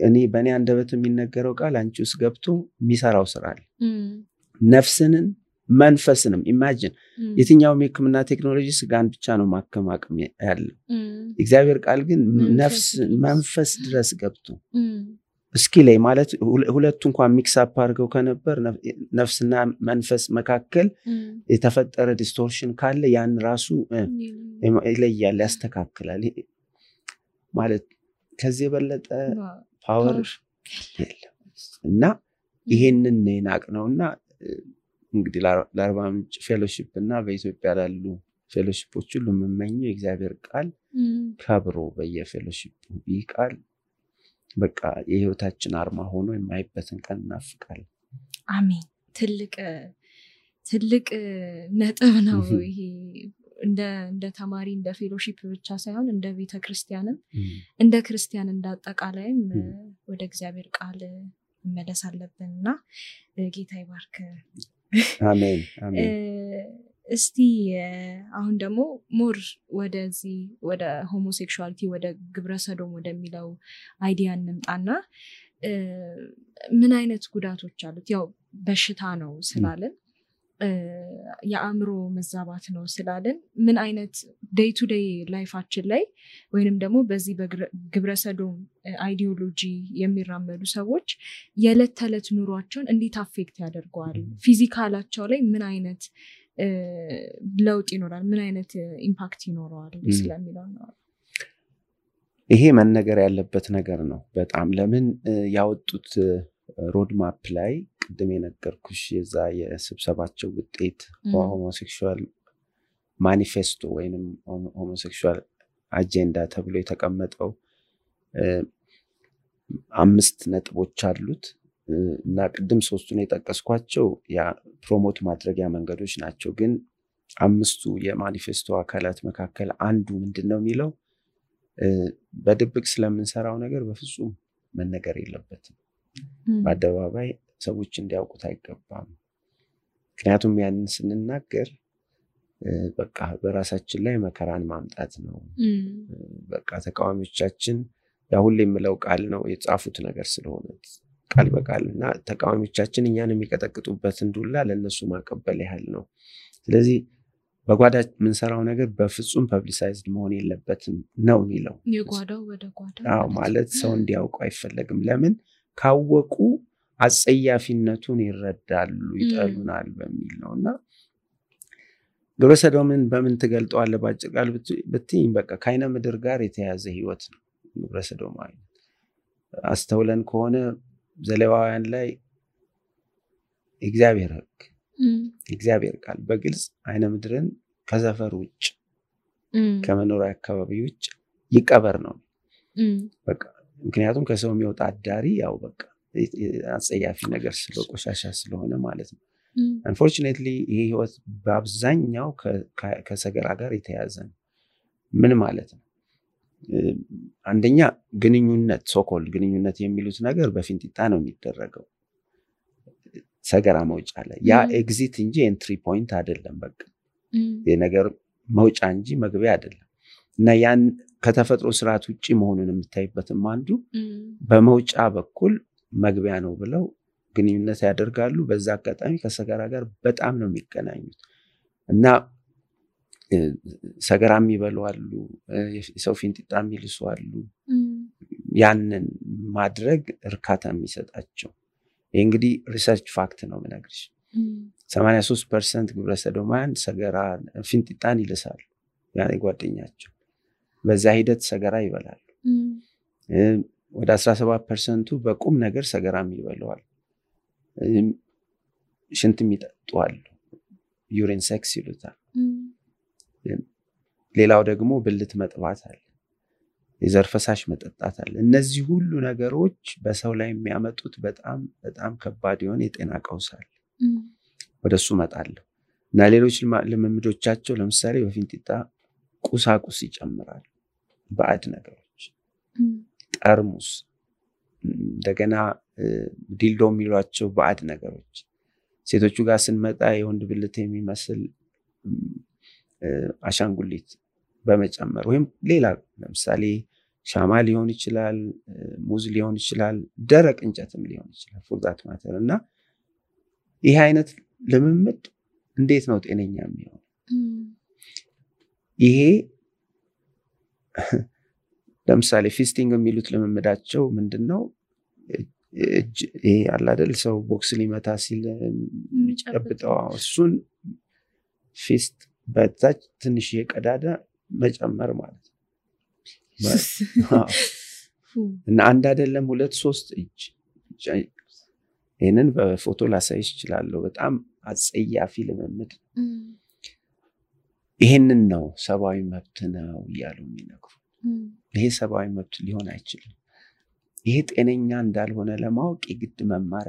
እኔ በእኔ አንደበት የሚነገረው ቃል አንቺ ውስጥ ገብቶ የሚሰራው ስራ አለ። ነፍስንን መንፈስንም ኢማጂን የትኛውም የሕክምና ቴክኖሎጂ ስጋን ብቻ ነው ማከም አቅም ያለው። እግዚአብሔር ቃል ግን ነፍስ መንፈስ ድረስ ገብቶ እስኪ ላይ ማለት ሁለቱ እንኳን ሚክስ አፕ አድርገው ከነበር ነፍስና መንፈስ መካከል የተፈጠረ ዲስቶርሽን ካለ ያን ራሱ ይለያል፣ ያስተካክላል። ማለት ከዚህ የበለጠ ፓወር የለም። እና ይሄንን ናቅ ነውና እንግዲህ ለአርባ ምንጭ ፌሎሺፕ እና በኢትዮጵያ ላሉ ፌሎሺፖች ሁሉ የምመኘው የእግዚአብሔር ቃል ከብሮ በየፌሎሺፑ ይህ ቃል በቃ የህይወታችን አርማ ሆኖ የማይበትን ቀን እናፍቃለን። አሜን። ትልቅ ነጥብ ነው ይሄ። እንደ ተማሪ እንደ ፌሎሺፕ ብቻ ሳይሆን እንደ ቤተክርስቲያንም እንደ ክርስቲያን እንዳጠቃላይም ወደ እግዚአብሔር ቃል መመለስ አለብንና ጌታ ይባርክ። አሜን አሜን። እስቲ አሁን ደግሞ ሞር ወደዚህ ወደ ሆሞሴክሹዋሊቲ ወደ ግብረ ሰዶም ወደሚለው አይዲያ እንምጣና ምን አይነት ጉዳቶች አሉት? ያው በሽታ ነው ስላልን የአእምሮ መዛባት ነው ስላልን ምን አይነት ዴይ ቱ ዴይ ላይፋችን ላይ ወይንም ደግሞ በዚህ በግብረ ሰዶም አይዲዮሎጂ የሚራመዱ ሰዎች የዕለት ተዕለት ኑሯቸውን እንዴት አፌክት ያደርገዋል? ፊዚካላቸው ላይ ምን አይነት ለውጥ ይኖራል? ምን አይነት ኢምፓክት ይኖረዋል ስለሚለው ነው። ይሄ መነገር ያለበት ነገር ነው በጣም። ለምን ያወጡት ሮድማፕ ላይ ቅድም የነገርኩሽ የዛ የስብሰባቸው ውጤት ሆሞሴክሹዋል ማኒፌስቶ ወይንም ሆሞሴክሹዋል አጀንዳ ተብሎ የተቀመጠው 5 ነጥቦች አሉት እና ቅድም 3ቱን የጠቀስኳቸው ያ ፕሮሞት ማድረጊያ መንገዶች ናቸው። ግን 5ቱ የማኒፌስቶ አካላት መካከል አንዱ ምንድነው የሚለው በድብቅ ስለምንሰራው ነገር በፍጹም መነገር የለበትም። በአደባባይ ሰዎች እንዲያውቁት አይገባም። ምክንያቱም ያንን ስንናገር በቃ በራሳችን ላይ መከራን ማምጣት ነው። በቃ ተቃዋሚዎቻችን ያ ሁሌ የምለው ቃል ነው የጻፉት ነገር ስለሆነ ቃል በቃልና ተቃዋሚዎቻችን እኛን የሚቀጠቅጡበትን ዱላ ለነሱ ማቀበል ያህል ነው። ስለዚህ በጓዳ የምንሰራው ነገር በፍጹም ፐብሊሳይዝድ መሆን የለበትም ነው የሚለው። የጓዳው ወደ ጓዳ ማለት ሰው እንዲያውቁ አይፈለግም። ለምን ካወቁ አጸያፊነቱን ይረዳሉ፣ ይጠሉናል በሚል ነውና ግብረ ሰዶምን በምን ትገልጠዋለህ? ባጭር ቃል ብትይኝ በቃ ከዓይነ ምድር ጋር የተያዘ ህይወት ነው ግብረ ሰዶማዊ። አስተውለን ከሆነ ዘሌዋውያን ላይ እግዚአብሔር ሕግ እግዚአብሔር ቃል በግልጽ ዓይነ ምድርን ከሰፈር ውጭ ከመኖሪያ አካባቢ ውጭ ይቀበር ነው በቃ። ምክንያቱም ከሰው የሚወጣ አዳሪ ያው በቃ አጸያፊ ነገር ቆሻሻ ስለሆነ ማለት ነው። unfortunately ይሄ ህይወት በአብዛኛው ከሰገራ ጋር የተያዘ ነው። ምን ማለት ነው? አንደኛ ግንኙነት ሶኮል ግንኙነት የሚሉት ነገር በፊንጢጣ ነው የሚደረገው ሰገራ መውጫ ላይ ያ ኤግዚት እንጂ ኤንትሪ ፖይንት አይደለም። በቃ የነገር መውጫ እንጂ መግቢያ አይደለም። እና ያን ከተፈጥሮ ስርዓት ውጪ መሆኑን የምታይበትም አንዱ በመውጫ በኩል መግቢያ ነው ብለው ግንኙነት ያደርጋሉ። በዛ አጋጣሚ ከሰገራ ጋር በጣም ነው የሚገናኙት እና ሰገራም ይበላሉ፣ የሰው ፊንጢጣ የሚልሱ አሉ። ያንን ማድረግ እርካታ የሚሰጣቸው ይሄ እንግዲህ ሪሰርች ፋክት ነው የምነግርሽ። 83% ግብረ ሰዶማውያን ሰገራ ፊንጢጣን ይልሳሉ ያኔ ጓደኛቸው። በዛ ሂደት ሰገራ ይበላሉ። ወደ 17% በቁም ነገር ሰገራም ይበላዋል። ሽንትም ይጠጣሉ፣ ዩሪን ሴክስ ይሉታል። ሌላው ደግሞ ብልት መጥባት አለ፣ የዘር ፈሳሽ መጠጣት አለ። እነዚህ ሁሉ ነገሮች በሰው ላይ የሚያመጡት በጣም በጣም ከባድ የሆነ የጤና ቀውስ አለ። ወደሱ መጣለሁ እና ሌሎች ልምምዶቻቸው ለምሳሌ በፊንጢጣ ቁሳቁስ ይጨምራሉ፣ ባዕድ ነገሮች፣ ጠርሙስ፣ እንደገና ዲልዶ የሚሏቸው ባዕድ ነገሮች። ሴቶቹ ጋር ስንመጣ የወንድ ብልት የሚመስል አሻንጉሊት በመጨመር ወይም ሌላ ለምሳሌ ሻማ ሊሆን ይችላል፣ ሙዝ ሊሆን ይችላል፣ ደረቅ እንጨትም ሊሆን ይችላል for that matter። እና ይሄ አይነት ልምምድ እንዴት ነው ጤነኛ የሚሆነው? ይሄ ለምሳሌ ፊስቲንግ የሚሉት ልምምዳቸው ምንድነው? ይሄ አለ አይደል ሰው ቦክስ ሊመታ ሲል የሚጨብጠው እሱን ፊስት በታች ትንሽ የቀዳዳ መጨመር ማለት ነው። እና አንድ አይደለም 2-3 እጅ። ይሄንን በፎቶ ላሳይሽ እችላለሁ። በጣም አጸያፊ ልምምድ። ይሄንን ነው ሰብአዊ መብት ነው እያሉ የሚነግሩ። ይሄ ሰብአዊ መብት ሊሆን አይችልም። ይሄ ጤነኛ እንዳልሆነ ለማወቅ የግድ መማር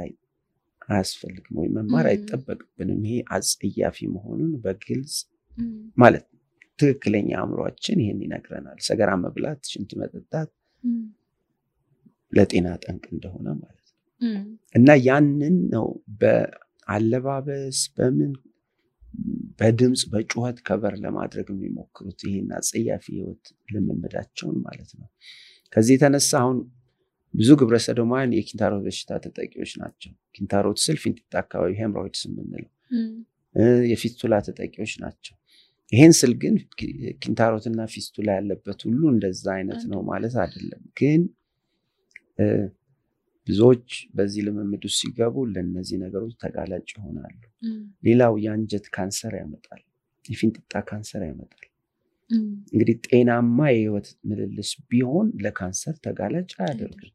አያስፈልግም ወይ መማር አይጠበቅብንም። ይሄ አጸያፊ መሆኑን በግልጽ ማለት ትክክለኛ አእምሮአችን ይሄን ይነግረናል። ሰገራ መብላት፣ ሽንት መጠጣት ለጤና ጠንቅ እንደሆነ ማለት ነው። እና ያንን ነው በአለባበስ በምን በድምጽ በጩኸት ከበር ለማድረግ የሚሞክሩት ይሄን አጸያፊ ህይወት ልምምዳቸውን ማለት ነው። ከዚህ የተነሳ አሁን ብዙ ግብረ ሰዶማውያን የኪንታሮት በሽታ ተጠቂዎች ናቸው። ኪንታሮት ስል ፊንጢጣ አካባቢ ሄምሮይድስ የምንለው የፊስቱላ ተጠቂዎች ናቸው። ይሄን ስል ግን ኪንታሮትና ፊስቱላ ያለበት ሁሉ እንደዛ አይነት ነው ማለት አይደለም። ግን ብዙዎች በዚህ ልምምድ ውስጥ ሲገቡ ለነዚህ ነገሮች ተጋላጭ ይሆናሉ። ሌላው የአንጀት ካንሰር ያመጣል፣ የፊንጢጣ ካንሰር ያመጣል። እንግዲህ ጤናማ የህይወት ምልልስ ቢሆን ለካንሰር ተጋላጭ አያደርግም።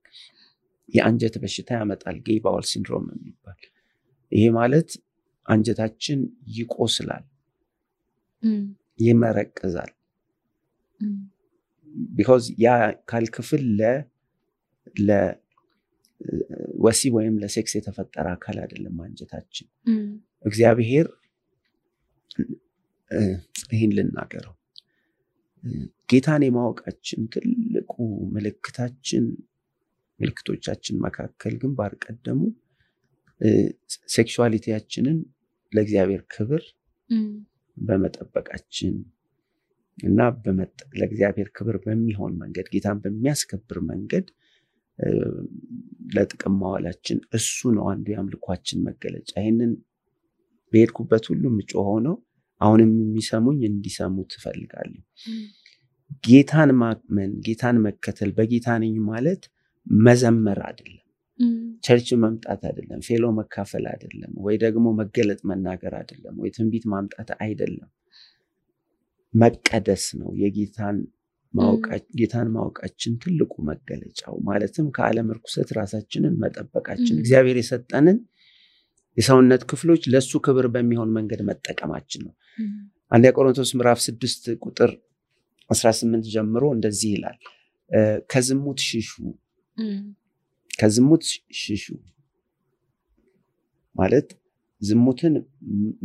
የአንጀት በሽታ ያመጣል፣ ጌይ ባውል ሲንድሮም የሚባል። ይሄ ማለት አንጀታችን ይቆስላል፣ ይመረቅዛል። because ያ ካልክፍል ለወሲብ ወይም ለሴክስ የተፈጠረ አካል አይደለም አንጀታችን። እግዚአብሔር ይሄን ልናገረው ጌታን የማወቃችን ትልቁ ምልክቶቻችን መካከል ግንባር ቀደሙ ሴክሹዋሊቲያችንን ለእግዚአብሔር ክብር በመጠበቃችን እና ለእግዚአብሔር ክብር በሚሆን መንገድ ጌታን በሚያስከብር መንገድ ለጥቅም ማዋላችን እሱ ነው አንዱ የአምልኳችን መገለጫ። ይሄንን በሄድኩበት ሁሉ ምጮኸው ነው። አሁንም የሚሰሙኝ እንዲሰሙት እፈልጋለሁ። ጌታን ማመን፣ ጌታን መከተል፣ በጌታ ነኝ ማለት መዘመር አይደለም፣ ቸርች መምጣት አይደለም፣ ፌሎ መካፈል አይደለም፣ ወይ ደግሞ መገለጥ መናገር አይደለም፣ ወይ ትንቢት ማምጣት አይደለም። መቀደስ ነው። ጌታን ማወቃችን ትልቁ መገለጫው ማለትም ከዓለም ርኩሰት ራሳችንን መጠበቃችን፣ እግዚአብሔር የሰጠንን የሰውነት ክፍሎች ለሱ ክብር በሚሆን መንገድ መጠቀማችን ነው። አንደኛ ቆሮንቶስ ምዕራፍ 6 ቁጥር 18 ጀምሮ እንደዚህ ይላል፣ ከዝሙት ሽሹ ማለት ዝሙትን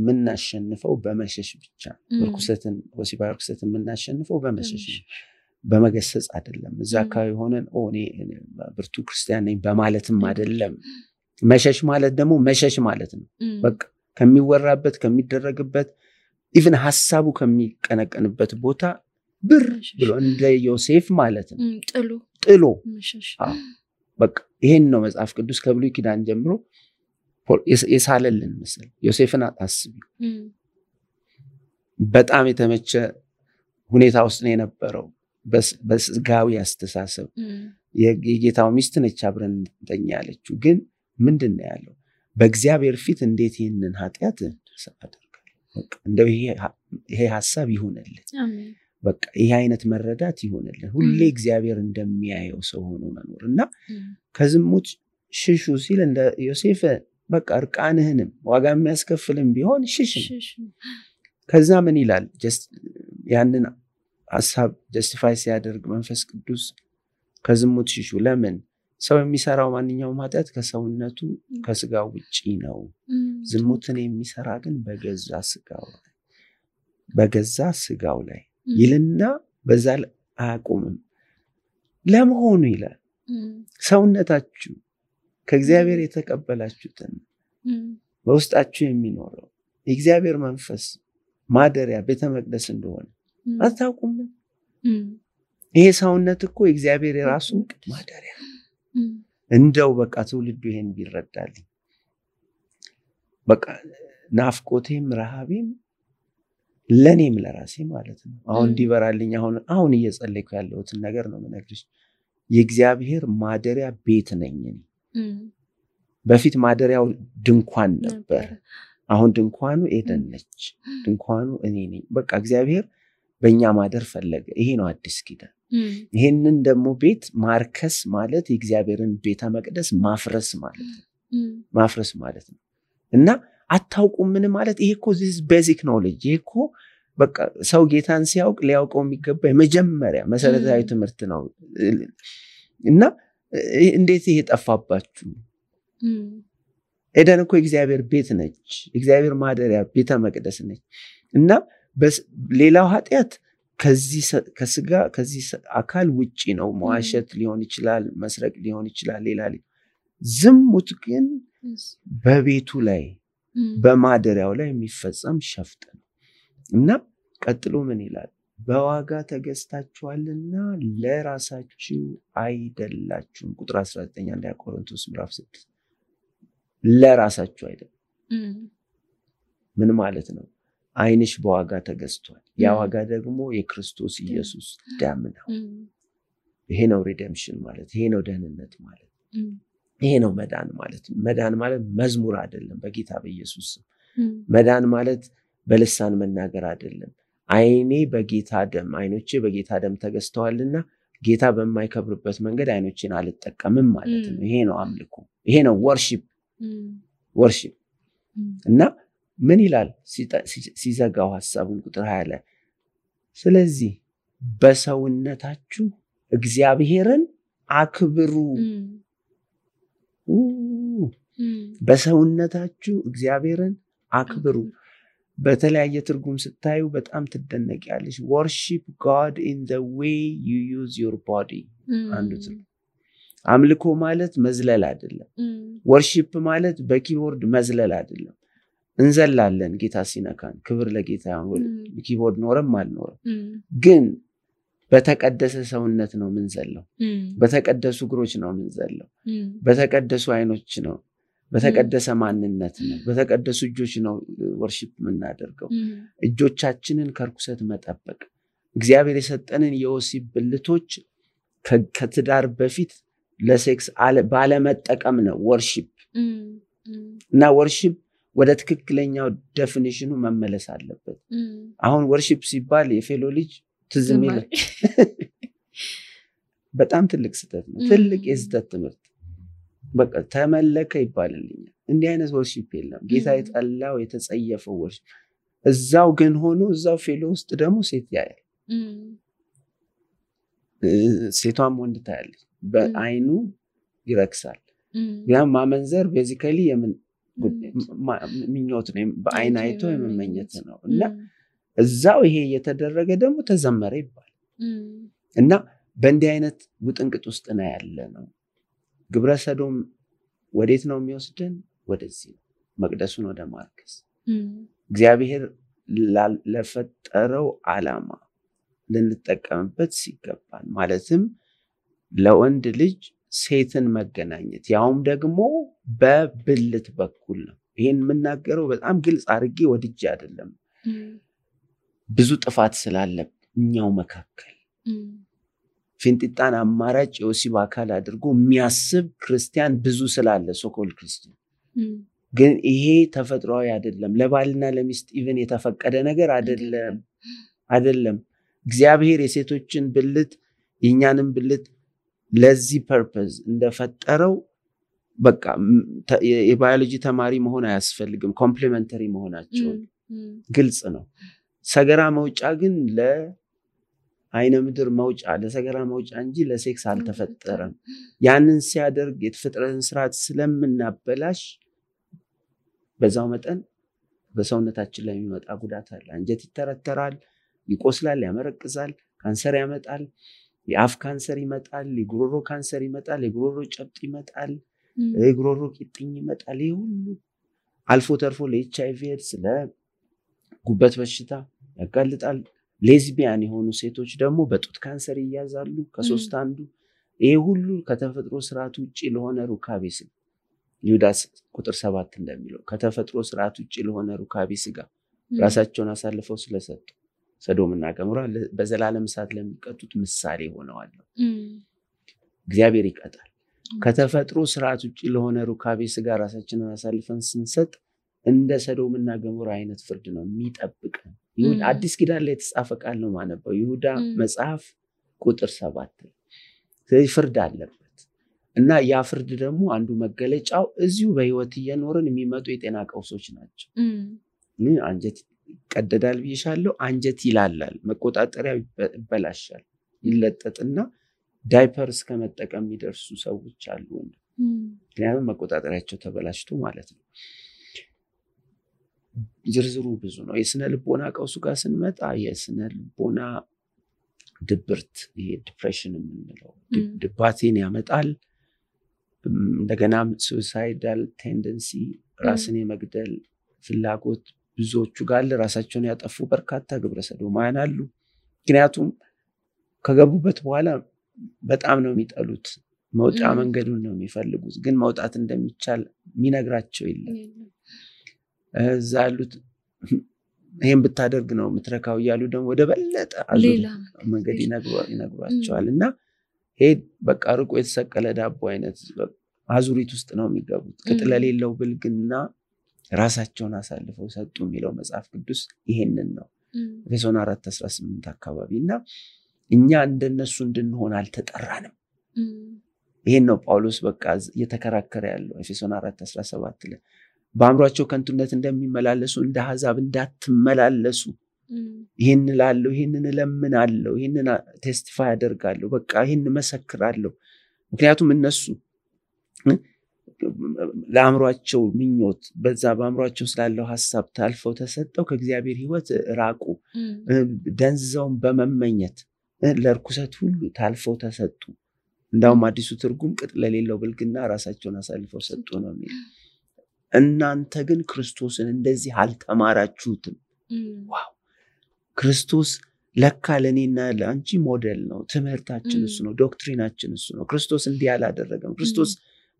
ምናሸንፈው በመሸሽ ብቻ ርኩሰትን ወሲባዊ ርኩሰትን ምናሸንፈው በመሸሽ በመገሰጽ አይደለም እዛ አካባቢ ሆነን እኔ ብርቱ ክርስቲያን ነኝ በማለትም አይደለም መሸሽ ማለት ደግሞ መሸሽ ማለት ነው በቃ ከሚወራበት ከሚደረግበት ኢቭን ሐሳቡ ከሚቀነቀንበት ቦታ ብር ብሎ እንደ ዮሴፍ ማለት ነው ጥሎ መሸሽ በቃ ይሄን ነው መጽሐፍ ቅዱስ ከብሉይ ኪዳን ጀምሮ የሳለልን ምስል ዮሴፍን አታስቢ በጣም የተመቸ ሁኔታ ውስጥ ነው የነበረው በስጋዊ አስተሳሰብ የጌታው ሚስት ነች አብረን ተኛለችው ግን ምንድነው ያለው በእግዚአብሔር ፊት እንዴት ይሄንን ኃጢያት አደርጋለሁ በቃ እንደው ይሄ ሐሳብ ይሁንልኝ አሜን በቃ ይሄ አይነት መረዳት ይሁንልኝ ሁሌ እግዚአብሔር እንደሚያየው ሰው ሆኖ መኖርና ከዝሙት ሽሹ ሲል እንደ ዮሴፍ በቃ እርቃንህንም ዋጋ የሚያስከፍልም ቢሆን ሽሽ ከዛ ምን ይላል ጀስት ያንን ሐሳብ ጀስቲፋይ ሲያደርግ መንፈስ ቅዱስ ከዝሙት ሽሹ ለምን ሰው የሚሰራው ማንኛውም ኃጢያት ከሰውነቱ ከስጋው ውጪ ነው ዝሙትን የሚሰራ ግን በገዛ ስጋው ላይ ይልና በዛ አያቆምም ለመሆኑ ይላል ሰውነታችሁ ከእግዚአብሔር የተቀበላችሁትን በውስጣችሁ የሚኖረው የእግዚአብሔር መንፈስ ማደሪያ ቤተ መቅደስ እንደሆነ አታውቁም ይሄ ሰውነት እኮ የእግዚአብሔር የራሱ ማደሪያ እንደው በቃ ትውልዱ ይሄን ቢረዳልኝ በቃ ናፍቆቴም ረሃቤም ለኔም ለራሴ ማለት ነው አሁን ዲበራልኝ አሁን እየጸለይኩ ያለሁትን ነገር ነው መነግርሽ የእግዚአብሔር ማደሪያ ቤት ነኝ በፊት ማደሪያው ድንኳን ነበር አሁን ድንኳኑ ኤደን ነች ድንኳኑ እኔ ነኝ በቃ እግዚአብሔር በእኛ ማደር ፈለገ ይሄ ነው አዲስ ኪዳን ይሄንን ደግሞ ቤት ማርከስ ማለት የእግዚአብሔርን ቤተ መቅደስ ማፍረስ ማለት ነው እና አታውቁም ምን ማለት ይሄ እኮ this basic knowledge ይሄ እኮ በቃ ሰው ጌታን ሲያውቅ ሊያውቀው የሚገባ የመጀመሪያ መሰረታዊ ትምህርት ነው እና እንዴት ይሄ ጠፋባችሁ ኤደን እኮ የእግዚአብሔር ቤት ነች እግዚአብሔር ማደሪያ ቤተ መቅደስ ነች እና ሌላው ኃጢያት ከዚህ አካል ውጪ ነው መዋሸት ሊሆን ይችላል መስረቅ ሊሆን ይችላል ሌላ ዝሙት ግን በቤቱ ላይ በማደሪያው ላይ የሚፈጸም ሸፍጥ ነው እና ቀጥሎ ምን ይላል በዋጋ ተገዝታችኋልና ለራሳችሁ አይደላችሁም ቁጥር 19 አንደኛ ቆሮንቶስ ምዕራፍ 6 ለራሳችሁ አይደለም ምን ማለት ነው አይንሽ በዋጋ ተገዝቷል ያ ዋጋ ደግሞ የክርስቶስ ኢየሱስ ደም ነው ይሄ ነው ሪደምፕሽን ማለት ይሄ ነው ደህንነት ማለት ይሄ ነው መዳን ማለት መዝሙር አይደለም በጌታ በኢየሱስ መዳን ማለት በልሳን መናገር አይደለም አይኔ በጌታ ደም አይኖቼ በጌታ ደም ተገዝተዋልና ጌታ በማይከብርበት መንገድ አይኖቼን አልጠቀምም ማለት ነው ይሄ ነው አምልኮ ይሄ ነው ወርሺፕ እና ምን ይላል ሲዘጋው ሐሳቡን ቁጥር 20 ላይ ስለዚህ በሰውነታችሁ እግዚአብሔርን አክብሩ በሰውነታችሁ እግዚአብሔርን አክብሩ በተለያየ ትርጉም ስታዩ በጣም ትደነቂያለሽ worship God in the way you use your body አንዱት አምልኮ ማለት መዝለል አይደለም worship ማለት በኪቦርድ መዝለል አይደለም እንዘላለን ጌታ ሲነካን ክብር ለጌታ ይሁን ኪቦርድ ኖርም አልኖርም ግን በተቀደሰ ሰውነት ነው ምንዘለው በተቀደሱ እግሮች ነው ምንዘለው በተቀደሱ አይኖች ነው በተቀደሰ ማንነት ነው በተቀደሱ እጆች ነው worship የምናደርገው እጆቻችንን ከርኩሰት መጠበቅ እግዚአብሔር የሰጠንን የወሲብ ብልቶች ከትዳር በፊት ለሴክስ ባለመጠቀም ነው worship እና worship ወደ ትክክለኛው ዴፊኒሽኑ መመለስ አለበት አሁን worship ሲባል የፌሎ ልጅ ትዝሚል በጣም ትልቅ ስህተት ነው ትልቅ የስህተት ትምህርት በቃ ተመለከ ይባልልኝ እንዲህ አይነት worship የለም ጌታ የጠላው የተጸየፈው worship እዛው ግን ሆኖ እዛው ፌሎ ውስጥ ደግሞ ሴት ያያል ሴቷም ወንድ ታያለች በአይኑ ይረክሳል ያ ማመንዘር ቤዚካሊ ምኞት ነው በአይን አይቶ የመመኘት ነው እና እዛው ይሄ የተደረገ ደግሞ ተዘመረ ይባል እና በእንዲህ አይነት ውጥንቅጥ ውስጥ ነው ያለ ነው ግብረ ሰዶም ወዴት ነው የሚወስደን ወደዚህ መቅደሱን ወደ ማርከስ እግዚአብሔር ለፈጠረው ዓላማ ልንጠቀምበት ሲገባን ማለትም ለወንድ ልጅ ሴትን መገናኘት ያውም ደግሞ በብልት በኩል ነው ይሄን የምናገረው በጣም ግልጽ አድርጌ ወድጄ አይደለም ብዙ ጥፋት ስላለኛው መካከል ፊንጢጣን አማራጭ የወሲብ አካል አድርጎ የሚያስብ ክርስቲያን ብዙ ስላለ ሶኮል ክርስቲያን ግን ይሄ ተፈጥሯዊ አይደለም ለባልና ለሚስት ኢቭን የተፈቀደ ነገር አይደለም እግዚአብሔር የሴቶችን ብልት የኛንም ብልት ለዚህ ፐርፐዝ እንደፈጠረው በቃ የባዮሎጂ ተማሪ መሆን አያስፈልግም ኮምፕሊመንተሪ መሆናቸው ግልጽ ነው ሰገራ መውጫ ግን ለአይነ ምድር መውጫ ለሰገራ መውጫ እንጂ ለሴክስ አልተፈጠረም ያንን ሲያደርግ የተፈጠረን ስርዓት ስለምናበላሽ በዛው መጠን በሰውነታችን ላይ የሚመጣ ጉዳት አለ አንጀት ይተረተራል ይቆስላል ያመረቅዛል ካንሰር ያመጣል የአፍ ካንሰር ይመጣል የጉሮሮ ካንሰር ይመጣል የጉሮሮ ጨብጥ ይመጣል የጉሮሮ ቂጥኝ ይመጣል ይሄ ሁሉ አልፎ ተርፎ ለኤችአይቪ ኤድስ ለጉበት በሽታ ያጋልጣል ሌዝቢያን የሆኑ ሴቶች ደግሞ በጡት ካንሰር ይያዛሉ ከሶስት አንዱ ይሄ ሁሉ ከተፈጥሮ ስርዓት ውጪ ለሆነ ሩካቤ ስጋ ይሁዳ ቁጥር 7 እንደሚለው ከተፈጥሮ ስርዓት ውጪ ለሆነ ሩካቤ ስጋ ራሳቸውን አሳልፈው ስለሰጡ ሰዶምና ገሞራ በዘላለም እሳት ለሚቀጡት ምሳሌ ሆነዋል እግዚአብሔር ይቀጣል ከተፈጥሮ ስርዓት ውጪ ለሆነ ሩካቤ ስጋ ራሳችንን አሳልፈን ስንሰጥ እንደ ሰዶምና ገሞራ አይነት ፍርድ ነው የሚጠብቀን ይሁዳ አዲስ ኪዳን ላይ የተጻፈ ቃል ነው ማነበው ይሁዳ መጽሐፍ ቁጥር 7 ስለዚህ ፍርድ አለበት እና ያ ፍርድ ደግሞ አንዱ መገለጫው እዚሁ በህይወት እየኖርን የሚመጡ የጤና ቀውሶች ናቸው አንጀት ቀደዳል ቢሻለው አንጀት ይላላል መቆጣጠሪያ ይበላሻል ይለጠጥና ዳይፐር እስከመጠቀም የሚደርሱ ሰዎች አሉ ምክንያቱም መቆጣጠሪያቸው ተበላሽቶ ማለት ነው ዝርዝሩ ብዙ ነው የስነ ልቦና ቀውሱ ጋር ስንመጣ የስነ ልቦና ድብርት ይሄ ዲፕሬሽን የምንለው ድባቴን ያመጣል እንደገና suicidal tendency ራስን የመግደል ፍላጎት ብዙዎቹ ጋር ራሳቸውን ያጠፉ በርካታ ግብረ ሰዶማውያን አሉ ምክንያቱም ከገቡበት በኋላ በጣም ነው የሚጠሉት መውጫ መንገዱን ነው የሚፈልጉት ግን መውጣት እንደሚቻል የሚነግራቸው የለም ዛሉት ይሄን ብታደርግ ነው ምትረካው ያሉ ደግሞ ወደ በለጠ አዙር መንገድ ይነግሯቸዋልና ሄድ በቃ ርቆ የተሰቀለ ዳቦ አይነት አዙሪት ውስጥ ነው የሚገቡት ከተለሌለው ብልግና ራሳቸውን አሳልፈው ሰጡ የሚለው መጽሐፍ ቅዱስ ይሄንን ነው ኤፌሶን 4:18 አካባቢና እኛ እንደነሱ እንድንሆን አልተጠራንም ይሄን ነው ጳውሎስ በቃ እየተከራከረ ያለው ኤፌሶን 4:17 ላይ በአምሯቸው ከንቱነት እንደሚመላለሱ እንደ አሕዛብ እንዳትመላለሱ ይሄን ላለው ይሄንን ለምናለው ይሄንን ቴስቲፋይ አደርጋለሁ በቃ ይሄን መሰክራለሁ ምክንያቱም እነሱ ለአምሯቸው ምኞት በዛ በአምሯቸው ስላለው ሐሳብ ታልፈው ተሰጠው ከእግዚአብሔር ሕይወት ራቁ ደንዘውን በመመኘት ለርኩሰት ሁሉ ታልፈው ተሰጡ እንዳውም አዲሱ ትርጉም ቅጥ ለሌለው ብልግና ራሳቸውን አሳልፈው ሰጡ ነው የሚለው እናንተ ግን ክርስቶስን እንደዚህ አልተማራችሁትም ዋው ክርስቶስ ለካ ለኔና ለአንቺ ሞዴል ነው ትምህርታችን እሱ ነው ዶክትሪናችን እሱ ነው ክርስቶስ እንዲህ አላደረገም ክርስቶስ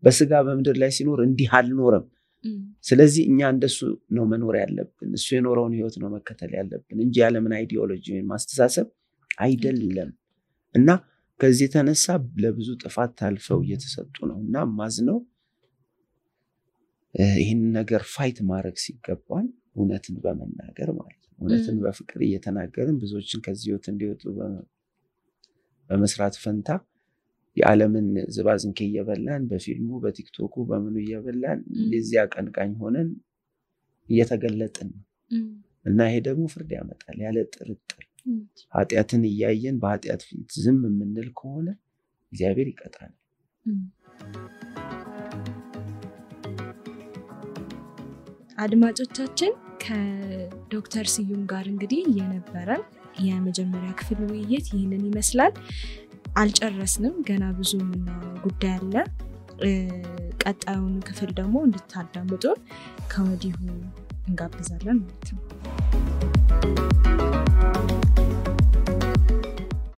በስጋ በመድር ላይ ሲኖር እንዲህ አልኖረም ስለዚህ እኛ እንደሱ ነው መኖር ያለብን እሱ የኖረውን ህይወት ነው መከተል ያለብን እንጂ ያለምን አይዲዮሎጂ ወይ ማስተሳሰብ አይደለም እና ከዚህ ተነሳ ለብዙ ጥፋት ታልፈው እየተሰጡ ነውና ማዝነው ይሄን ነገር ፋይት ማድረግ ሲገባን እውነትን በመናገር ማለት ነው እውነትን በፍቅር እየተናገርን ብዙዎችን ከዚህ ህይወት እንዲወጡ በመስራት ፈንታ የዓለምን ዝባዝንኬ እየበላን በፊልሙ በቲክቶኩ በምኑ እየበላን እንደዚህ አቀንቃኝ ሆነን እየተገለጥን እና ይሄ ደግሞ ፍርድ ያመጣል ያለ ጥርጥር ኃጢአትን እያየን በኃጢአት ፊት ዝም የምንል ከሆነ እግዚአብሔር ይቀጣል አድማጮቻችን ከዶክተር ስዩም ጋር እንግዲህ የነበረን የመጀመሪያ ክፍል ውይይት ይህንን ይመስላል። አልጨረስንም፣ ገና ብዙ የምናወራው ጉዳይ አለ። ቀጣዩን ክፍል ደግሞ እንድታዳምጡ ከወዲሁ እንጋብዛለን ማለት ነው።